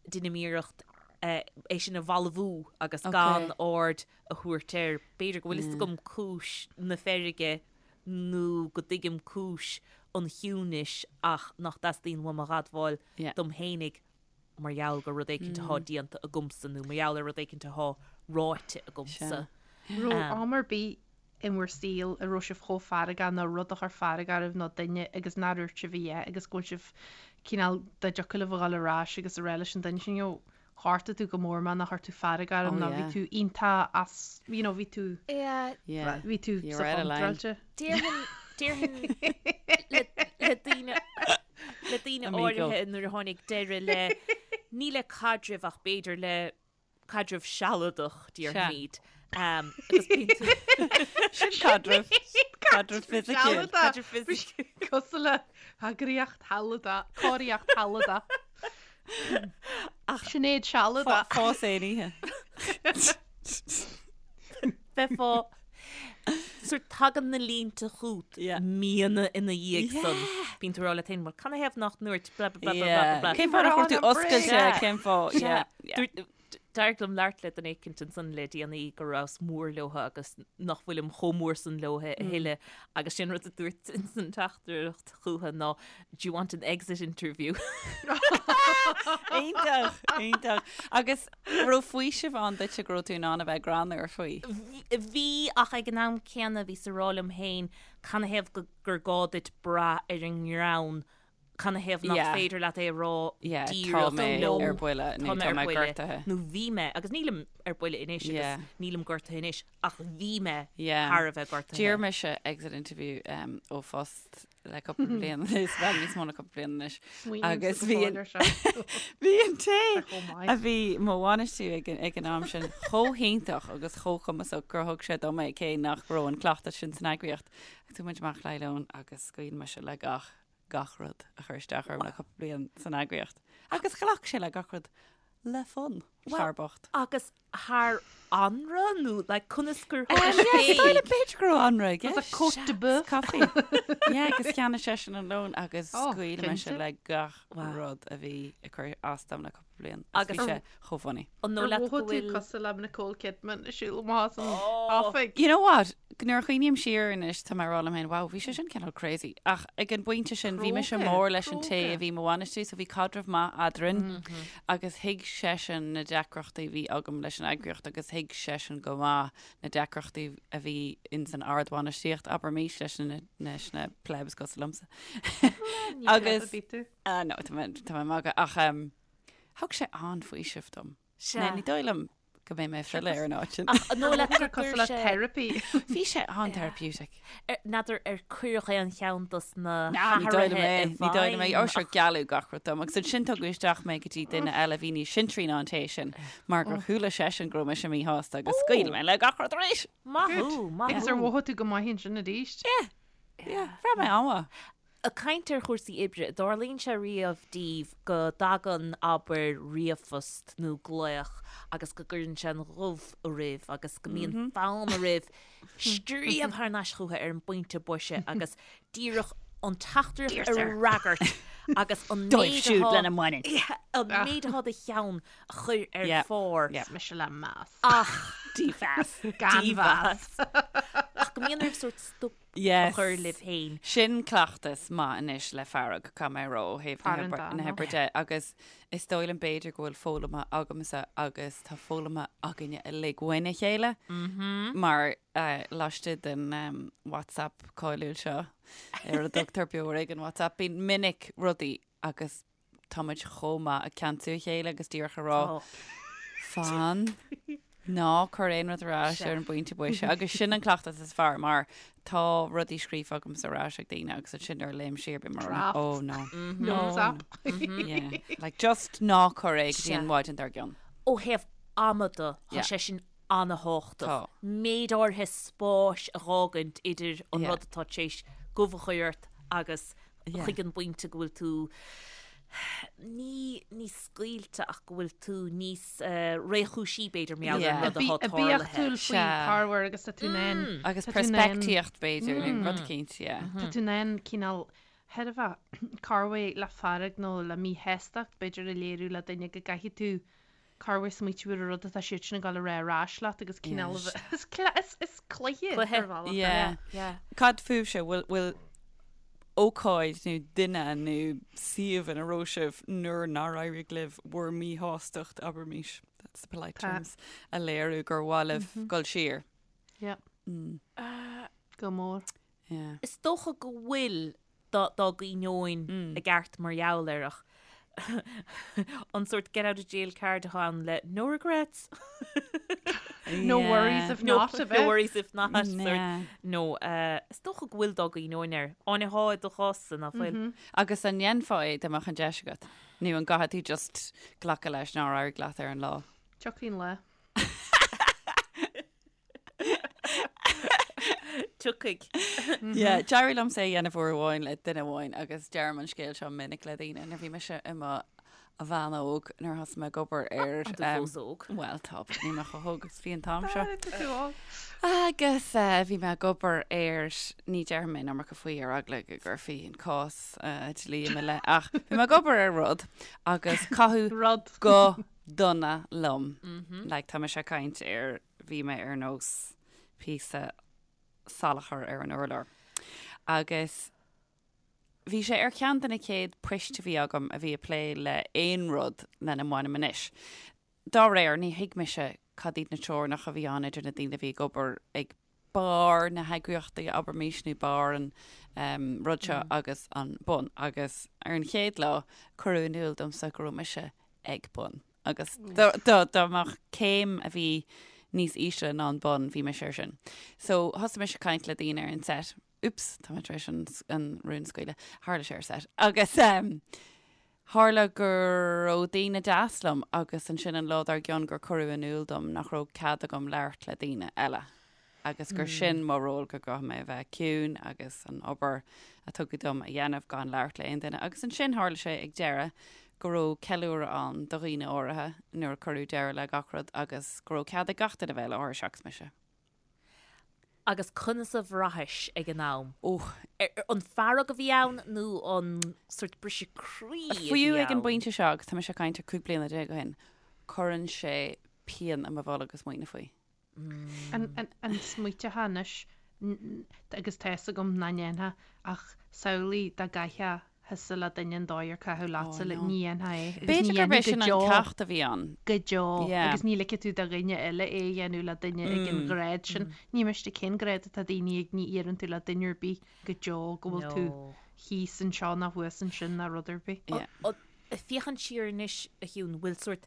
Speaker 2: deinim iarracht é sin a bhalbhú agus gan aird a thabhairt air. B'fhéidir go bhfuil fhios agam cúis na feirge nó go dtuigim cúis an chiúnais ach nach dteastaíonn uaim a dh'admháil dom fhéinig mar gheall gur rud éicint atá déanta agamsa nó mar gheall ar rud éicint atá ráite agamsa.
Speaker 4: Raibh am ar bith in bhur saol a raibh sibh chomh feargach nó rud a chuir fearg oraibh nó duine agus nár dhúirt sibh a dhath agus go bhfuil sibh cineál dá dtiocfadh libh a dhul ar ais agus a rá leis an duine sin you know ghortaigh tú go mór mé nó chuir tú fearg orm
Speaker 3: Oh
Speaker 4: nó bhí
Speaker 3: yeah.
Speaker 4: tú iontach as you know bhí tú
Speaker 2: Yeah.
Speaker 3: Yeah.
Speaker 4: bhí tú
Speaker 3: You're
Speaker 4: sa
Speaker 3: out of line.
Speaker 4: chontráilte.
Speaker 2: Déarfainn déarfainn le le daoine le daoine
Speaker 3: Amigo.
Speaker 2: áirithe nuair a tháinig deireadh le ní le caidreamh ach b'fhéidir le caidreamh sealadach, déarfaimid. Agus bíonn tú.
Speaker 3: Sin caidreamh. Caidreamh fisiciúil.
Speaker 2: Caidreamh fisiciúil.
Speaker 4: Cosúil le heagraíocht shealadach, cóiríocht shealadach. Sinéad sealadach.
Speaker 3: Fás aon oíche.
Speaker 2: Bheifeá sort tagann na línte chugat míonna ina dhiaidh san. Bíonn tú ag rá leat féin, bhuel, canathaobh nach ndúirt blah blah blah blah blah blah.
Speaker 3: Cén fáth nach raibh tú oscailte, cén fáth, yeah.
Speaker 2: Dúirt- D'éirigh liom labhairt le duine éicint ansan le déanaí go rabhas mór leotha agus nach bhfuilim chomh mór san leotha a thuilleadh agus sin rud a dúirt insan teachtaireacht chútha ná do you want an exit interview?
Speaker 3: Iontach, iontach. Agus raibh faoiseamh ann duitse go raibh tú in ann a bheith greannmhar faoi?
Speaker 2: Bhí ach ag an am céanna bhíos ag rá liom féin canathaobh gur gá duit brath ar an ngreann Canathaobh nach
Speaker 3: Yeah.
Speaker 2: féidir leat é a rá
Speaker 3: Yeah, tá
Speaker 2: díreach
Speaker 3: mé
Speaker 2: liom?
Speaker 3: ar buile nó
Speaker 2: Tá mé
Speaker 3: tá
Speaker 2: ar
Speaker 3: mé
Speaker 2: buile
Speaker 3: gortaithe.
Speaker 2: nó bhí mé, agus nílim ar buile anois agus
Speaker 3: Yeah.
Speaker 2: nílim gortaithe anois, ach bhí mé
Speaker 3: Yeah.
Speaker 2: thar a bheith gortaithe.
Speaker 3: D'iarr mise exit interview um, ó phost le cúpla bliain anois, bhuel níos mó ná cúpla bliain anois.
Speaker 4: Smaoiním
Speaker 3: Agus
Speaker 4: sa
Speaker 3: bhí
Speaker 4: bhfóill
Speaker 3: an-
Speaker 4: ar seo.
Speaker 3: Bhí an té
Speaker 4: Chomh maith.
Speaker 3: a bhí mo bhainistiú ag an, ag an am sin chomh hiontach agus chomh cumasach gur thug sé dom é cé nach raibh an cleachtas sin san eagraíocht. Agus chuaigh muid amach le lón agus scaoil mise le gach gach rud a chuir isteach orm le cúpla bliain san eagraíocht. Agus ghlac sé le gach rud le fonn, fear bocht.
Speaker 2: Agus thar anraith nó like conas gur
Speaker 3: Yeah, is dóigh liom b'fhéidir go raibh anraith i
Speaker 4: Was a
Speaker 3: gceist.
Speaker 4: côte de bœuf.
Speaker 3: Coffee. Yeah, agus cheannaigh seisean an lón agus
Speaker 4: Oh,
Speaker 3: scaoil mise
Speaker 4: cinnte.
Speaker 3: le gach
Speaker 2: Wow.
Speaker 3: rud a bhí ag cur as dom le cúpla bliain. Agus
Speaker 2: Agus-
Speaker 3: bhí sé chomh funny.
Speaker 2: An
Speaker 4: Ar
Speaker 2: dóigh leat go
Speaker 4: mhothaigh tú
Speaker 2: bhfuil
Speaker 4: cosúil le Nicole Kidman ag siúl amach as an oifig?
Speaker 3: You know what? Nuair a chuimhním siar anois tá mé ag rá liom féin, wow, bhí sé sin cineál crazy. Ach ag an bpointe sin bhí mise
Speaker 4: Cróga,
Speaker 3: mór leis an té
Speaker 4: cróga.
Speaker 3: a bhí mo bhainistiú, so bhí caidreamh maith eadrainn agus thuig seisean na deacrachtaí a bhí agam leis an eagraíocht agus thuig seisean go maith na deacrachtaí a bhí ins an ardbhainistíocht, abraimis, leis na, leis na plebs cosúil liomsa.
Speaker 4: Ní
Speaker 3: Agus-
Speaker 4: pleb a bhí tú.
Speaker 3: Ah, no, tá mé tá mé ag magadh, ach um, Thug sé an-fhaoiseamh dom.
Speaker 2: Sea.
Speaker 3: Ní dóigh liom go mbeidh mé ag filleadh ar an áit sin.
Speaker 2: Ach an dóigh leat
Speaker 4: Gur
Speaker 2: gur
Speaker 4: cosúil le
Speaker 2: sé
Speaker 4: therapy.
Speaker 3: Bhí sé an-therapeutic.
Speaker 2: N'fheadar ar cuireadh aon cheann dos na
Speaker 3: Ná, ní dóigh liom
Speaker 2: hathruithe
Speaker 3: é.
Speaker 2: i
Speaker 3: Ní dóigh liom é.
Speaker 2: bhfeidhm
Speaker 3: Ó, sure, gealladh gach rud dom. Agus ansin tugadh isteach mé go dtí duine eile a bhí níos sinsearaí ná an té sin, mar gur chuala seisean go raibh mise míshásta agus scaoil mé le gach rud arís.
Speaker 2: Maith thú, maith
Speaker 4: Agus ar
Speaker 2: thú.
Speaker 4: mhothaigh tú go maith ansin arís?
Speaker 3: Yeah. Yeah, bhraith mé an-mhaith.
Speaker 2: Ag caint ar chúrsaí oibre, dtarlaíonn sé riamh daoibh go dtagann, abair, ríomhphost nó glaoch agus go gcuireann sé an ghoimh oraibh agus go mbíonn fonn oraibh scríobh thar n-ais chucu ar an bpointe boise agus díreach an teachtaireacht a fhreagairt agus an
Speaker 3: Dóibh
Speaker 2: méid
Speaker 3: siúd
Speaker 2: atá
Speaker 3: lena mbaineann.
Speaker 2: an méid atá i do cheann a chur ar
Speaker 3: Yeah.
Speaker 2: phár.
Speaker 3: Yeah.
Speaker 4: Mise le meas.
Speaker 2: Ach
Speaker 3: Dímheas.
Speaker 4: Gan mheas.
Speaker 2: ach go mbíonn oraibh sórt stop
Speaker 3: Yes.
Speaker 2: a chur libh féin.
Speaker 3: Sin cleachtas maith anois le fearg, caithfidh mé a rá, ó thaobh na
Speaker 4: Fear an
Speaker 3: hoibre- na
Speaker 4: dá,
Speaker 3: hoibre de, agus is dóigh liom b'fhéidir go bhfuil foghlamtha agamsa agus tá foghlamtha againne uilig uainn a chéile, mar eh, laistigh den em, WhatsApp cáiliúil seo, ar a dtugtar Beo Ar Éigean WhatsApp, bíonn minic rudaí agus táimid chomh maith ag ceansú a chéile agus díreach a rá, fan, ná cuir aon rud ar ais ar an bpointe boise. Agus sin an cleachtas is fearr mar tá rudaí scríofa agamsa ar ais ag daoine agus ansin nuair a léim siar bím mar
Speaker 4: Draft.
Speaker 3: oh no.
Speaker 4: Notes app.
Speaker 3: Yeah. Like just ná cuir é go dtí an mhaidin dár gcionn.
Speaker 2: Ó thaobh ama de, tá
Speaker 3: Yeah.
Speaker 2: sé sin an-thábhachtach.
Speaker 3: Tá.
Speaker 2: Méid áirithe spáis a dh'fhágaint idir an
Speaker 3: Yeah.
Speaker 2: rud atá tar éis gomh a chur ort agus
Speaker 3: Yeah.
Speaker 2: chuig an bpointe go bhfuil tú ní níos scaoilte ach go bhfuil tú níos eh, réchúisí b'fhéidir mar gheall ar
Speaker 3: Yeah.
Speaker 2: an rud atá tarlaithe.
Speaker 4: Oibiachtúil faoi
Speaker 3: Sea.
Speaker 4: corruair agus tá tú in ann
Speaker 3: Agus
Speaker 4: tá tú in ann-
Speaker 3: peirspictíocht b'fhéidir, nó rud eicínt, yeah.
Speaker 4: Tá tú in ann cineál chóir a bheith corruair le fearg nó le míshástacht b'fhéidir a léiriú le duine go gcaithfidh tú corruair smaoitiú ar an rud atá siad sin ag dul a rá ar ais leat agus cineál a bheith is cla- is is cluiche
Speaker 2: Cluiche.
Speaker 4: ar bhealach é.
Speaker 3: Yeah.
Speaker 2: Yeah.
Speaker 3: Cad fúibhse, bhfuil bhfuil ócáid nó duine nó suíomh ina raibh sibh nuair nár éirigh libh bhur míshástacht, abraimis, that's the polite
Speaker 4: Tá.
Speaker 3: terms, a léiriú gur mhaith libh dul siar?
Speaker 4: Yeah. Go mór.
Speaker 3: Yeah.
Speaker 2: Is dócha go bhfuil dá gcuimhneoinn i gceart mar gheall air ach an sórt get out of jail card atá ann le no regrets.
Speaker 4: No worries if
Speaker 2: No,
Speaker 4: not a
Speaker 2: no
Speaker 4: bheith.
Speaker 2: worries if not. sort.
Speaker 3: Yeah.
Speaker 2: No, eh, is dócha go bhfuil dá gcuimhneoinn air. Áine thá i do chás-sa nach bhfuil.
Speaker 3: Agus an ndéanfá é dá mbeadh an deis agat? Nó an gcaithfidh tú just glacadh leis nár éirigh leat ar an lá?
Speaker 4: Tiocfaidh an lá.
Speaker 2: Tiocfaidh.
Speaker 3: Yeah, d'éirigh liomsa é a dhéanamh uair amháin le duine amháin agus deirim an scéal seo minic le daoine nuair bhí mise i mo bhean óg nuair a thosaigh mé ag obair ar
Speaker 2: Tá tú fós óg.
Speaker 3: Bhuel tá, but níl mé chomh hóg agus bhí an t-am seo.
Speaker 4: Tá tú óg.
Speaker 3: Agus bhí mé ag obair ar, ní déarfaidh mé an iomarca faoi ar eagla go gcuirfí an cás dlí i mo leith, ach bhí mé ag obair ar rud agus caitheadh
Speaker 4: Rud.
Speaker 3: go dona liom. Like tá mise ag caint ar, bhí mé ar nós píosa salachair ar an urlár. Agus bhí sé ar cheann de na chéad poist a bhí agam a bhí ag plé le aon rud lena mbainim anois. Dá réir, ní thuig mise cad iad na teorainneacha a bhí ann idir na daoine a bhí ag obair ag barr na heagraíochta, abraimis, nó barr an rud seo agus an bun. Agus ar an chéad lá, cuireadh in iúl domsa go raibh mise ag bun. Agus dá mbeadh céim a bhí níos ísle ná an bun, bhí mise air sin. So thosaigh mise ag caint le daoine ar an set. Oops, tá mé tar éis an, an rún a scaoileadh. Tharla sé ar set. Agus um, tharla go raibh daoine deas liom agus ansin an lá dár gcionn gur cuireadh in iúl dom nach raibh cead agam labhairt le daoine eile. agus gur sin mo ról, go gcaithfidh mé a bheith ciúin agus an obair a tugadh dom a dhéanamh gan labhairt le aon duine. Agus ansin tharla sé ag deireadh go raibh ceiliúradh ann do dhaoine áirithe nuair a cuireadh deireadh le gach rud agus go raibh cead ag gach duine bheith i láthair seachas mise.
Speaker 2: Agus conas a bhraithis ag an am?
Speaker 3: Ó.
Speaker 2: An fearg a bhí ann nó an sort briseadh croí a bhí ann?
Speaker 3: Fiú ag an bpointe seo, agus tá mise ag caint ar 15 bliana ó shin, cuireann sé pian i mo bholg ag smaoineamh faoi.
Speaker 4: An smaoiteofá anois, agus tá fhios agam nach ndéanfá, ach samhlaigh dá gcaithfeá thusa le duine an dóigh ar caitheadh leatsa, like, ní dhéanfá é. Agus ní
Speaker 3: B'fhéidir gurb é
Speaker 4: dhéanfaí
Speaker 3: sin
Speaker 4: go
Speaker 3: an
Speaker 4: deo,
Speaker 3: ceacht a bhí ann.
Speaker 4: go deo.
Speaker 3: Yeah.
Speaker 4: Agus ní ligfidh tú do dhuine eile é a dhéanamh le duine ag an ghrád sin. Ní miste cén grád atá daoine ag, ní iarrann tú le duine ar bith go deo go bhfuil tú
Speaker 2: No.
Speaker 4: thíos anseo ná thuas ansin ná rud ar bith.
Speaker 3: Yeah.
Speaker 2: Ag féachaint siar anois, a Shiún, bhfuil sort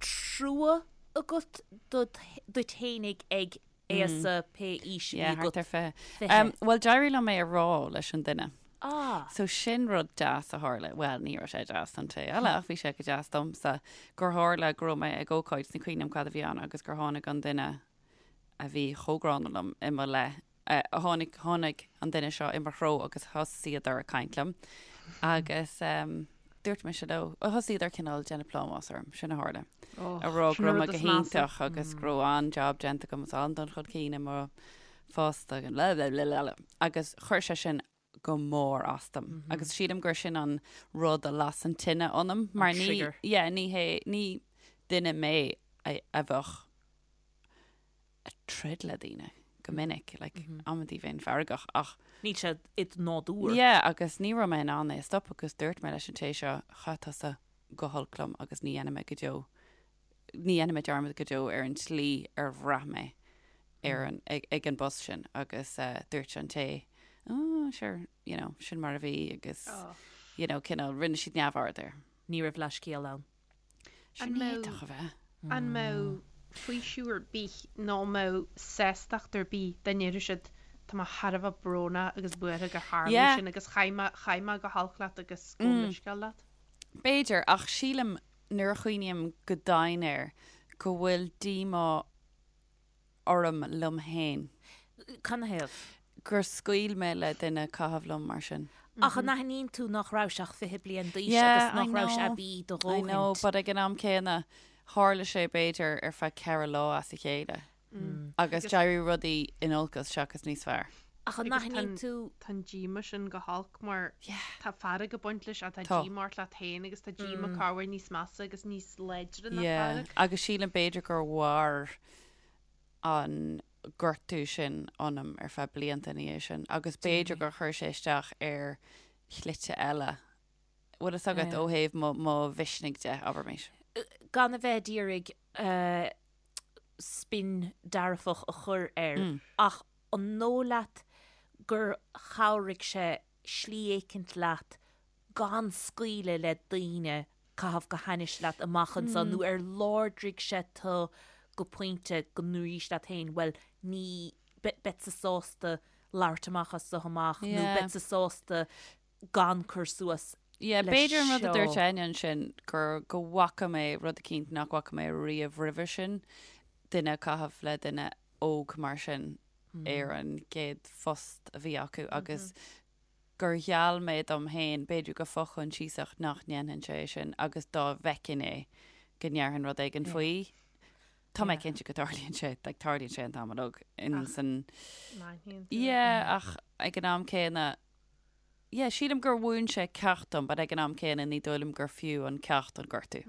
Speaker 2: trua agat duit fhéinig ag aosa pé aois a bhí
Speaker 3: Yeah,
Speaker 2: agat.
Speaker 3: thart ar 20.
Speaker 2: 20.
Speaker 3: Um, Bhuel, d'éirigh liom é a rá leis an duine.
Speaker 2: Ah.
Speaker 3: So sin rud deas a tharla, bhuel, ní raibh sé deas don té eile ach bhí sé go deas domsa, gur tharla go raibh mé ag ócáid, ní cuimhin liom cad a bhí ann, agus gur tháinig an duine a bhí chomh gránna liom i mo leith Tháinig, tháinig an duine seo i mo threo agus thosaíodar ag caint liom agus dúirt mise leo, thosaíodar cineál déanamh plámás orm, sin a tharla. A rá go raibh mé go hiontach agus go raibh an-jab déanta agam agus an-dul chun cinn i mo phost agus blah blah blah blah agus chuir sé sin go mór as dom. Agus sílim gur sin an rud a las an tine ionam mar ní, yeah, ní hé, ní duine mé a bheadh ag troid le daoine go minic, like, amantaí bheinn feargach ach.
Speaker 2: Níl sé id nádúr.
Speaker 3: Yeah, agus ní raibh mé in ann é a stop agus dúirt mé leis an té seo, chaith tusa go holc liom agus ní dhéanfaidh mé go deo, ní dhéanfaidh mé dearmad go deo ar an tslí ar bhraith mé ar an, ag, ag an bpost sin agus eh, dúirt an té, oh, sure, you know, sin mar a bhí agus,
Speaker 4: Oh.
Speaker 3: you know, cineál, rinne siad neamhaird air.
Speaker 2: Ní raibh leithscéal ann.
Speaker 3: Sin
Speaker 4: An mbeadh-
Speaker 3: iontach a bheith.
Speaker 4: An mbeadh faoiseamh ar bith nó an mbeadh sástacht ar bith dá ndéarfadh siad tá mé thar a bheith brónach agus buartha gur tharla
Speaker 3: Yeah.
Speaker 4: sin agus chaith mé, chaith mé go holc leat agus gabhaim leithscéal leat?
Speaker 3: B'fhéidir, ach sílim nuair a chuimhním go domhain air go bhfuil díomá orm liom féin.
Speaker 2: Canathaobh?
Speaker 3: Gur scaoil mé le duine caitheamh liom mar sin.
Speaker 2: Ach an aithníonn tú nach rabhais ach 20 bliain d'aois
Speaker 3: Yeah,
Speaker 2: agus
Speaker 3: I
Speaker 2: nach rabhais
Speaker 3: know.
Speaker 2: aibí do
Speaker 3: I know,
Speaker 2: dhóthaint?
Speaker 3: but ag an am céanna, tharla sé b'fhéidir ar feadh 4 lá as a chéile. Agus d'éirigh rudaí in olcas seachas níos fearr.
Speaker 2: Ach an
Speaker 4: Agus
Speaker 2: aithníonn tú.
Speaker 4: Tá an díomá sin go holc mar
Speaker 3: Yeah.
Speaker 4: tá fearg ag baint leis ach tá
Speaker 3: Tá.
Speaker 4: díomá ort leat féin agus tá díomá corruair níos measa agus níos láidre ná
Speaker 3: Yeah,
Speaker 4: fearg.
Speaker 3: agus sílim b'fhéidir gur mhair an gortú sin ionam ar feadh blianta ina dhiaidh sin agus b'fhéidir gur chuir sé isteach ar shlite eile, bhfuil fhios agat, ó thaobh mo, mo mhisnigh de, abraimis.
Speaker 2: Gan a bheith ag iarraidh spin dearfach a chur air ach an dóigh leat gur chabhraigh sé slí éicint leat gan scaoileadh le daoine caitheamh go hainnis leat amach anseo nó ar láidrigh sé tú go pointe go ndúraís leat féin bhuel ní beadsa sásta labhairt amach as seo amach nó beadsa sásta gan cur suas
Speaker 3: Yeah,
Speaker 2: leis
Speaker 3: b'fhéidir an rud a dúirt
Speaker 2: seo.
Speaker 3: Áine ansin gur go bhfaca mé rud eicínt nach bhfaca mé riamh roimhe sin, duine ag caitheamh le duine óg mar sin. ar an gcéad phost a bhí acu agus gur gheall mé dom féin, b'fhéidir go fo-choinsiasach, nach ndéanfainnse é sin agus dá bhfeicfinn é go ndéarfainn rud éigin faoi. Tá mé cinnte go dtarlaíonn sé, like tarlaíonn sé an t-am uilig in san. Yeah, ach ag an am céanna, yeah, sílim gur mhúin sé ceacht dom, but ag an am céanna ní dóigh liom gur fiú an ceacht an gortú.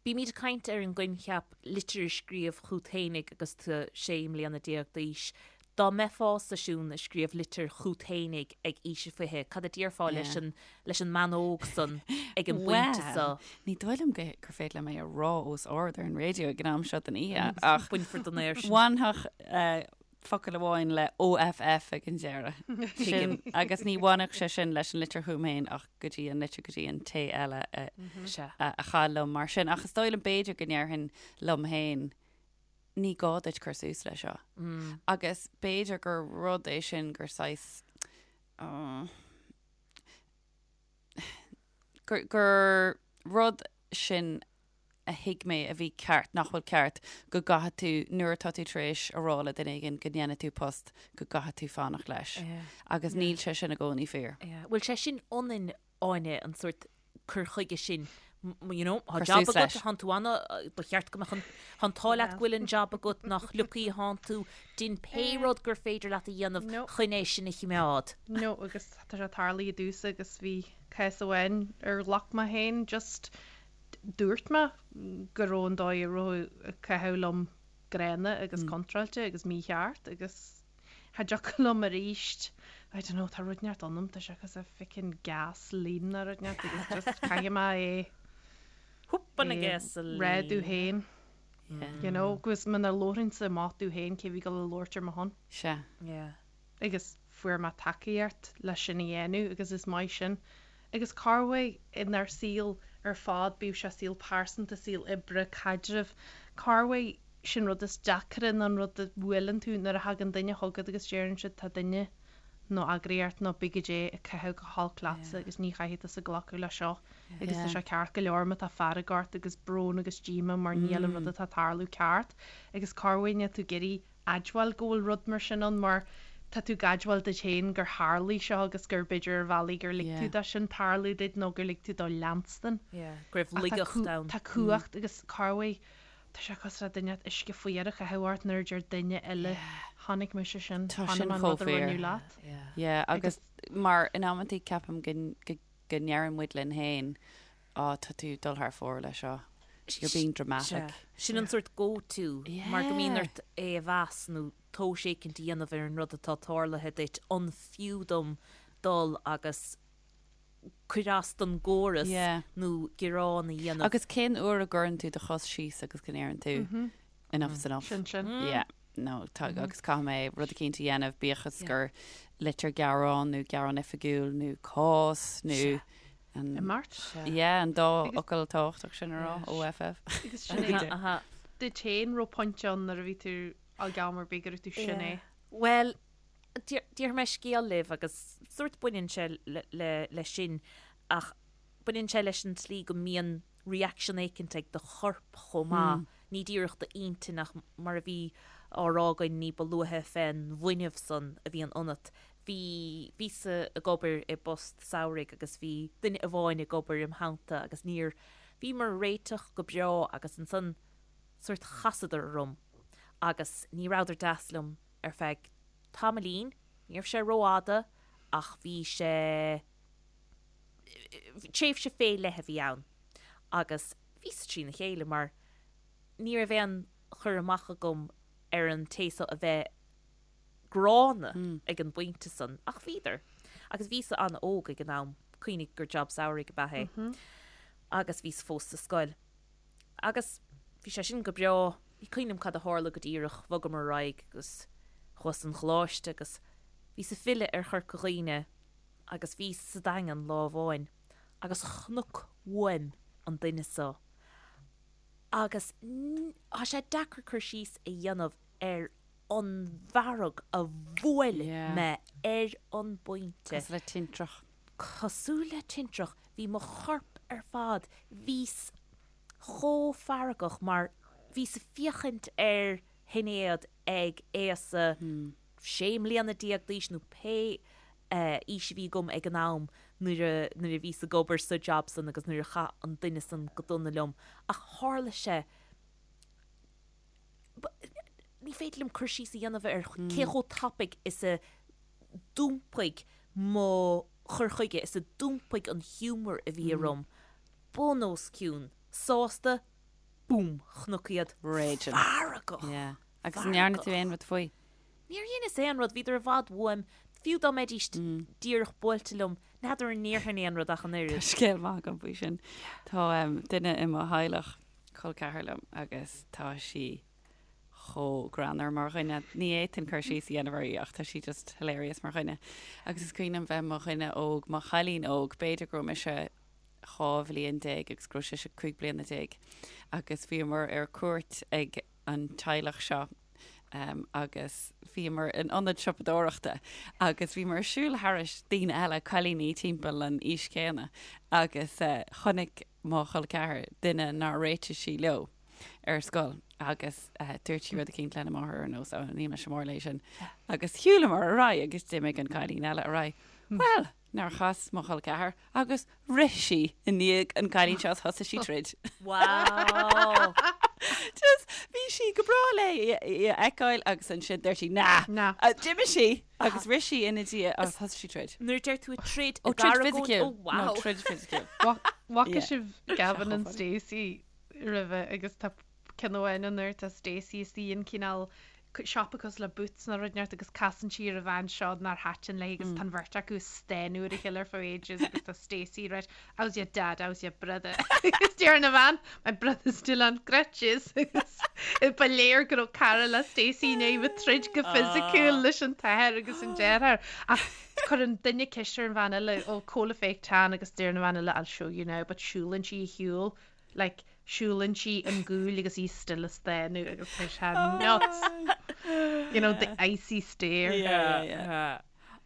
Speaker 2: Bímid ag caint ar an gcoincheap litir a scríobh chút fhéinig agus tú 16 mbliana d'aois. Dá mbeifeása Siún ag scríobh litir chút fhéinig ag aois a 20, cad a déarfá leis an leis an mbean óg san ag an bpointe
Speaker 3: so? Bhuel, ní dóigh liom gur féidir liom é a rá os ard ar an raidió ag an am seo den oíche ach
Speaker 2: Bainfear den aer
Speaker 3: sin. Bhainfeadh focal amháin le OFF ag an deireadh. Sin agus ní bhainfeadh sé sin leis an litir chugam féin ach go dtí an litir go dtí an té eile a chaill liom mar sin. Ach is dóigh liom b'fhéidir go ndéarfainn liom féin ní gá duit cur suas leis seo. Agus b'fhéidir gur rud é sin gur saghas gur gur rud sin a thuig mé a bhí ceart, nach bhfuil ceart, go gcaithfidh tú, nuair atá tú tar éis a rá le duine éigin go ndéanfaidh tú post, go gcaithfidh tú fanacht leis. Agus níl sé sin i gcónaí fíor.
Speaker 2: Bhfuil sé sin ionainn Áine, an sórt cur chuige sin, you know, tá job agat, tánn tú ana, ba cheart go mbeadh an, tá an t-ádh leat go bhfuil an job agat, nach lucky thánn tú, dein pé rud gur féidir leat a dhéanamh chun é sin a chimeád.
Speaker 4: No, agus tá sé tarlaithe domhsa agus bhí cás amháin ar ghlac mé féin, just dúirt mé go raibh an dóigh a raibh ag caitheamh liom gránna agus contráilte agus mícheart agus Cha dtiocfadh liom aríst. I don't know, tá rud inteacht ionam, tá sé cosúil le fucking gasoline nó rud inteacht agus just caithfidh mé é
Speaker 2: Húp an gasoline.
Speaker 4: rá domh féin. You know, agus muna labhraínnse amach domh féin cé bhí ag dul a labhairt ar mo shon.
Speaker 3: Sea.
Speaker 2: Yeah.
Speaker 4: Agus fuair mé tacaíocht leis sin a dhéanamh agus is maith sin. Agus corruair inár saol ar fad, bíodh sé saol pearsanta, saol oibre, caidreamh, corruair sin rud is deacra ná an rud a bhuaileann tú nuair a thagann duine chugat agus deireann siad tá duine nó eagraíocht nó pé goidé ag caitheamh go holc leatsa agus ní chaithfidh tusa glacadh le seo agus tá sé ceart go leor má tá fearg ort agus brón agus díomá mar níl an rud atá ag tarlú ceart agus corruair níl tú ag iarraidh admháil go bhfuil rud mar sin ann mar tá tú ag admháil duit féin gur tharlaigh seo agus gur b'fhéidir ar bhealaí gur lig tú dó sin tarlú duit nó gur lig tú dó leanstan.
Speaker 2: Go raibh laigeacht ann.
Speaker 4: Tá cumhacht agus corruair tá sé cosúil le duine uisce fuar a chaitheamh ort nuair a deir duine eile chonaic mise sin,
Speaker 3: Tá sin chomh
Speaker 4: rud a
Speaker 3: fíor.
Speaker 4: rinneadh leat.
Speaker 3: Yeah, agus mar in amantaí ceapaim go go go ndeireann muid linn féin Á, tá tú ag dul thar fóir leis seo. You're being dramatic.
Speaker 2: Sin an sórt go-to, mar go mbíonn ort é a mheas nó tomhas éicint a dhéanamh ar an rud atá tarlaithe duit, an fiú dom dul agus cur as don gcóras nó gearán a dhéanamh.
Speaker 3: Agus cén uair a gcuireann tú do chos síos agus go ndeireann tú enough is enough?
Speaker 4: Sin sin.
Speaker 3: Yeah. No, tá, agus caithfidh mé rud eicínt a dhéanamh, bíodh is gur litir gearán nó gearán oifigiúil nó cás nó
Speaker 4: an,
Speaker 3: Imeacht. yeah, an dá fhocal tábhachtach sin a rá, OFF.
Speaker 4: Agus sin é. Duit féin raibh pointe ann nuair a bhí tú ag am ar bith go raibh tú sin é.
Speaker 2: Bhuel, déarfaidh mé scéal libh agus sórt baineann sé leis sin ach baineann sé leis an tslí go mbíonn reaction éicint ag do chorp chomh maith, ní díreach d'intinn ach mar a bhí á rá againn ní ba luaithe fén bhfuinneamh san a bhíonn ionat. Bhí, bhíos-sa ag obair i bpost samhraidh agus bhí duine amháin ag obair im theannta agus níor, bhíomar ag réiteach go breá agus ansan sórt chasadar orm agus ní rabhadar deas liom ar feadh tamaillín, ní raibh sé rófhada ach bhí sé, tréimhse fé leith a bhí ann agus bhíos trína chéile mar ní raibh aon chur amach agam ar an té so a bheith gránna ag an bpointe san ach bhíodar. Agus bhíos an-óg ag an am, cuimhnigh gur job samhraidh ab ea é agus bhíos fós sa scoil. Agus bhí sé sin go breá, ní cuimhin liom cad a tharla go díreach, bhogamar ar aghaidh agus chuas 'on choláiste agus bhíos ag filleadh ar Chorca Dhuibhne agus bhíos sa Daingean lá amháin agus chonac uaim an duine so agus tá sé deacair cur síos a dhéanamh ar an bhfearg a bhuail mé ar an bpointe.
Speaker 3: Cosúil le tintreach.
Speaker 2: Cosúil le tintreach. Bhí mo chorp ar fad, bhíos chomh feargach mar bhíos ag féachaint ar. Shinéad ag aosa 16 mbliana d'aois nó pé aois a bhí agam ag an am nuair a nuair a bhíos ag obair sa job san agus nuair a chaith an duine san go dona liom ach tharla sé ní féidir liom cur síos a dhéanamh ar cé chomh tapaidh is a d'iompaigh mo chur chuige is a d'iompaigh an humour a bhí orm bun os cionn, sásta, búm, chonac iad
Speaker 3: Raging.
Speaker 2: feargach.
Speaker 3: Yeah. Agus an ndearna tú aon rud faoi?
Speaker 2: Níor dheineas aon rud, bhíodar i bhfad uaim, fiú dá mbeidís díreach buailte liom, n'fheadar an ndéarfainn aon rud ach an
Speaker 3: Tá
Speaker 2: oiread.
Speaker 3: scéal maith agam faoi sin. Tá duine i mo theaghlach, col ceathar liom, agus tá sí chomh greannmhar mar dhuine. Ní fhéadfainn cur síos a dhéanamh uirthi ach tá sí just hilarious mar dhuine. Agus is cuimhin liom bheith mo dhuine óg, mo chailín óg, b'fhéidir go raibh mise 12 bhliain agus go raibh sise 15 bliana agus bhíomar ar cuairt ag an teaghlach seo agus bhíomar in ionad siopadóireachta agus bhíomar ag siúl thairis daoine eile, cailíní timpeall an aois chéanna agus chonaic mo chol ceathar duine nár réitigh sí leo ar scoil agus dúirt sí rud eicínt lena máthair ar nós, 'Ó, níl mise mór léi sin. Agus shiúlamar ar aghaidh agus d'imigh an cailín eile ar aghaidh. Bhuel, nár chas mo chol ceathar agus rith sí i ndiaidh an cailín seo is thosaigh sí troid.
Speaker 2: Wow!
Speaker 3: Just bhí sí go breá léi í a fheiceáil agus ansin dúirt sí nah!
Speaker 4: Nah.
Speaker 3: D'imigh sí agus rith sí ina diaidh agus thosaigh sí troid.
Speaker 2: Nuair a deir tú troid
Speaker 3: Ó,
Speaker 2: i
Speaker 3: troid
Speaker 2: gcaragón,
Speaker 3: fisiciúil.
Speaker 2: oh wow!
Speaker 3: No, troid fisiciúil.
Speaker 4: Bhfaca
Speaker 3: Yeah.
Speaker 4: sibh Gavin and Stacey roimhe agus tá ceann amháin ann nuair atá Stacey istigh in cineál siopa cosúil le Boots nó rud inteacht agus casann sí ar an bhean seo nár thaitin léi agus tá an bheirt acu ag stánadh ar a chéile ar feadh ages agus tá Stacey right how's your dad how's your brother agus deir an bhean my brother's still on crutches agus ba léir go raibh cara le Stacey i ndiaidh bheith troid go fisiciúil leis an t-athair agus an deartháir ach cuireann duine ceist ar an bhean eile ó cá bhfuil an tan agus deir an bhean eile I'll show you now but siúlann sí ar shiúl like siúlann sí an gúil agus í still ag stánadh agus tá sé nuts. You know, the icy stare.
Speaker 3: Yeah, yeah.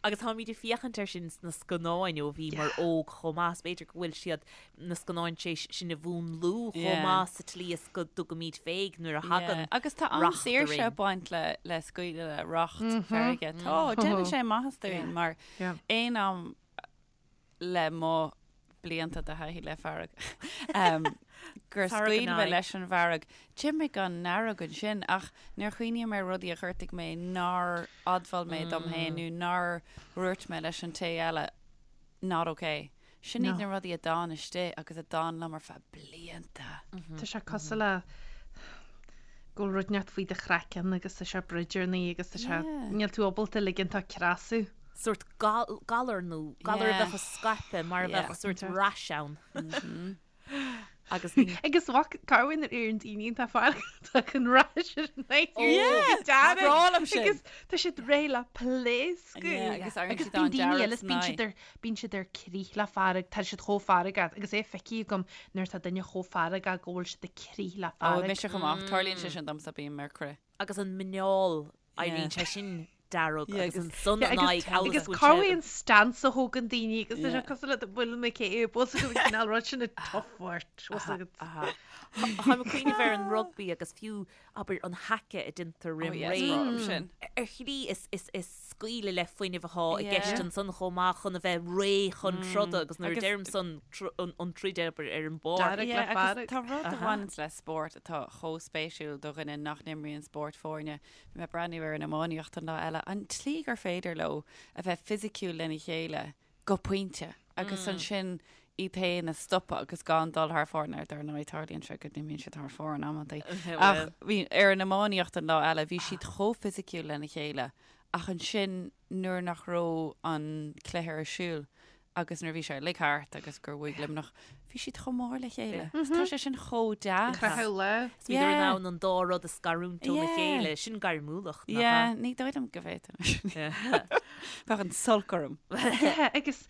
Speaker 2: Agus táimid ag féachaint air sin sna scannáin ó bhíomar óg chomh maith, is b'fhéidir go bhfuil siad na scannáin tar éis sinn a mhúnlú chomh maith sa tslí is go dtugaimid féig nuair a thagann
Speaker 3: Agus tá
Speaker 2: racht
Speaker 3: an-saoirse
Speaker 2: orainn.
Speaker 3: ag baint le le scaoileadh le racht feirge. Tá, déanann sé maitheas dúinn mar aon am le mo blianta de thaithí le fearg, gur scaoil mé leis an bhfearg. D'imigh an fhearg ansin ach nuair a chuimhním ar rudaí a ghortaigh mé nár admháil mé dom féin nó nár dhúirt mé leis an té eile not ok. Sin iad na rudaí a d'fhan istigh agus a d'fhan liom ar feadh blianta.
Speaker 4: Tá sé cosúil le go bhfuil rud inteacht faoi do chraiceann agus tá sé broidearnaí agus tá sé, níl tú ábalta ligean dó creasadh.
Speaker 2: sórt galar nó galar a bheadh ag scaipeadh mar a bheadh sórt rash ann. Agus ní.
Speaker 4: Agus mhac Carwyn ar an daoine atá feargach an rash ar an Agus tá siad réidh le pléascadh.
Speaker 3: Agus
Speaker 4: Agus bíonn daoine eile is bíonn siad ar bíonn siad ar crith le fearg, tá siad chomh feargach agus é feicthe agam nuair atá duine chomh feargach go bhfuil siad ag crith le
Speaker 3: Ó,
Speaker 4: fearg.
Speaker 3: mise chomh maith, tarlaíonn sé sin domsa, bím ar crith.
Speaker 2: Agus an muineál Éiríonn sé sin dearg agus ansan an aghaidh amhail
Speaker 4: Agus
Speaker 2: is go
Speaker 4: cá
Speaker 2: bhfuil sé.
Speaker 4: bhfuil an stance a thógann daoine agus tá sé cosúil le bhfuil mé cé bhfuil an cineál rud sin ag tough agat.
Speaker 2: Táim ag cuimhneamh ar an rugbaí agus fiú, abair, an haka a déantar roim ré.
Speaker 3: sin.
Speaker 2: Ar shlí is scaoileadh le fuinneamh atá i gceist ansan chomh maith chun a bheith réidh chun troda agus nuair a deirim san an troid abair ar an bpáirc.
Speaker 4: Dearg le fearg.
Speaker 3: Tá rud a bhaineanns le spórt atá chomh spéisiúil do dhuine nach n-imríonn spórt foirne. Bhí mé ag breathnú ar an iománaíocht an lá eile, an tslí gur féidir leo a bheith fisiciúil lena chéile go pointe agus ansin iad féin a stopadh agus gan dul thar fóir, nó dar ndóigh tarlaíonn sé go n-imíonn siad thar fóir in amantaí. Ach bhí ar an iománaíocht an lá eile, bhí siad chomh fisiciúil lena chéile ach ansin nuair nach raibh an cluiche ar siúl, agus nuair a bhí sé uilig thart agus gur bhuaigh Luimneach, bhí siad chomh mór le chéile. Tá sé sin chomh deas.
Speaker 4: Croitheadh lá.
Speaker 2: Is bhíodar in ann an dá rud a scarúint óna chéile. Sin gairmiúlacht,
Speaker 3: nach ea? Ní dóigh liom go bhféadfainn. Bheadh an t-olc orm.
Speaker 4: Yeah, agus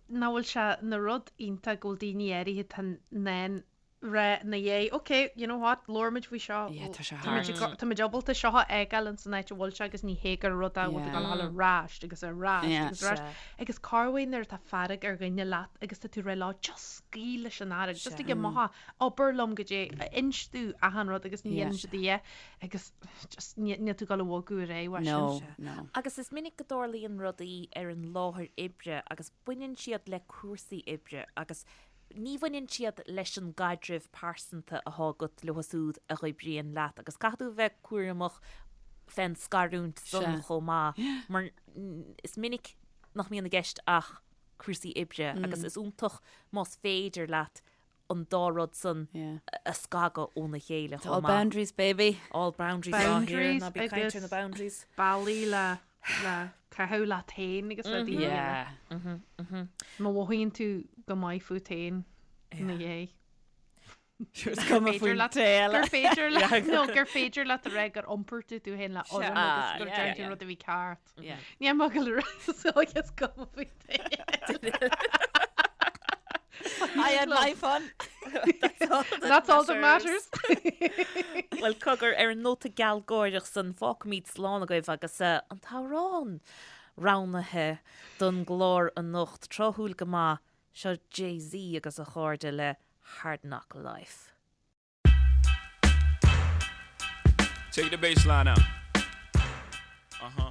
Speaker 4: nach bhfuil sé ina rud iontach go bhfuil daoine áirithe atá in ann. Rá ina dhiaidh, ok, you know what, labhróimid faoi seo.
Speaker 3: Yeah, tá sé
Speaker 4: Tá muid ag
Speaker 3: thart.
Speaker 4: go- Tá muid ábalta seo a fhágáil ins an áit a bhfuil sé agus ní hé gur rud é a bhfuil tú ag dul a dhul ar ais agus ar ais
Speaker 3: Yeah.
Speaker 4: agus ar ais.
Speaker 2: Sea.
Speaker 4: Agus corruair nuair atá fearg ar dhuine leat agus tá tú ag rá leo, just scaoil leis an fhearg, just
Speaker 2: Sea.
Speaker 4: ag amach, abair liom goidé, inis domh achan rud agus ní
Speaker 3: Yeah.
Speaker 4: dhéanann siad a dhath agus just ní níl tú ag dul a bhogadh ar aghaidh uaidh sin.
Speaker 3: No, no.
Speaker 2: Agus is minic go dtarlaíonn rudaí ar an láthair oibre agus baineann siad le cúrsaí oibre agus Ní bhaineann siad leis an gcaidreamh pearsanta athá agat leo súd a dh'oibríonn leat agus caithfidh tú a bheith cúramach fén scarúint san chomh maith mar is minic nach mbíonn i gceist ach cúrsaí oibre agus is iontach más féidir leat an dá rud san a scagadh óna chéile
Speaker 3: It's all
Speaker 2: chomh maith.
Speaker 3: boundaries, baby.
Speaker 2: All boundaries, ah, here,
Speaker 4: Boundaries
Speaker 2: ná bí ag caint ar
Speaker 4: agus
Speaker 2: na boundaries.
Speaker 4: bealaí le le caitheamh leat féin agus rudaí a
Speaker 3: Yeah.
Speaker 4: dhéanamh. Má mhothaíonn tú go maith fút féin ina dhiaidh.
Speaker 3: Is cuma
Speaker 4: féidir
Speaker 3: faoin
Speaker 4: leat-
Speaker 3: té eile.
Speaker 4: Gur féidir leat nó gur féidir leat a rá gur iompair tú tú féin le urraim agus
Speaker 3: Ah,
Speaker 4: gur
Speaker 3: yeah,
Speaker 4: dearn tú
Speaker 3: yeah.
Speaker 4: rud a bhí ceart.
Speaker 3: Yeah.
Speaker 4: Ní mar go le so is cuma faoin té eile.
Speaker 3: I had my fun.
Speaker 4: That's all that matters.
Speaker 2: Bhuel, cogar, ar an nóta gealgháireach san, fágfaimid slán agaibh agus an t-amhrán roghnaithe don gclár anocht, tráthúil go maith, seo Jay-Z agus a chairde le Hard Knock Life.
Speaker 5: Take the bass line out. Uh huh.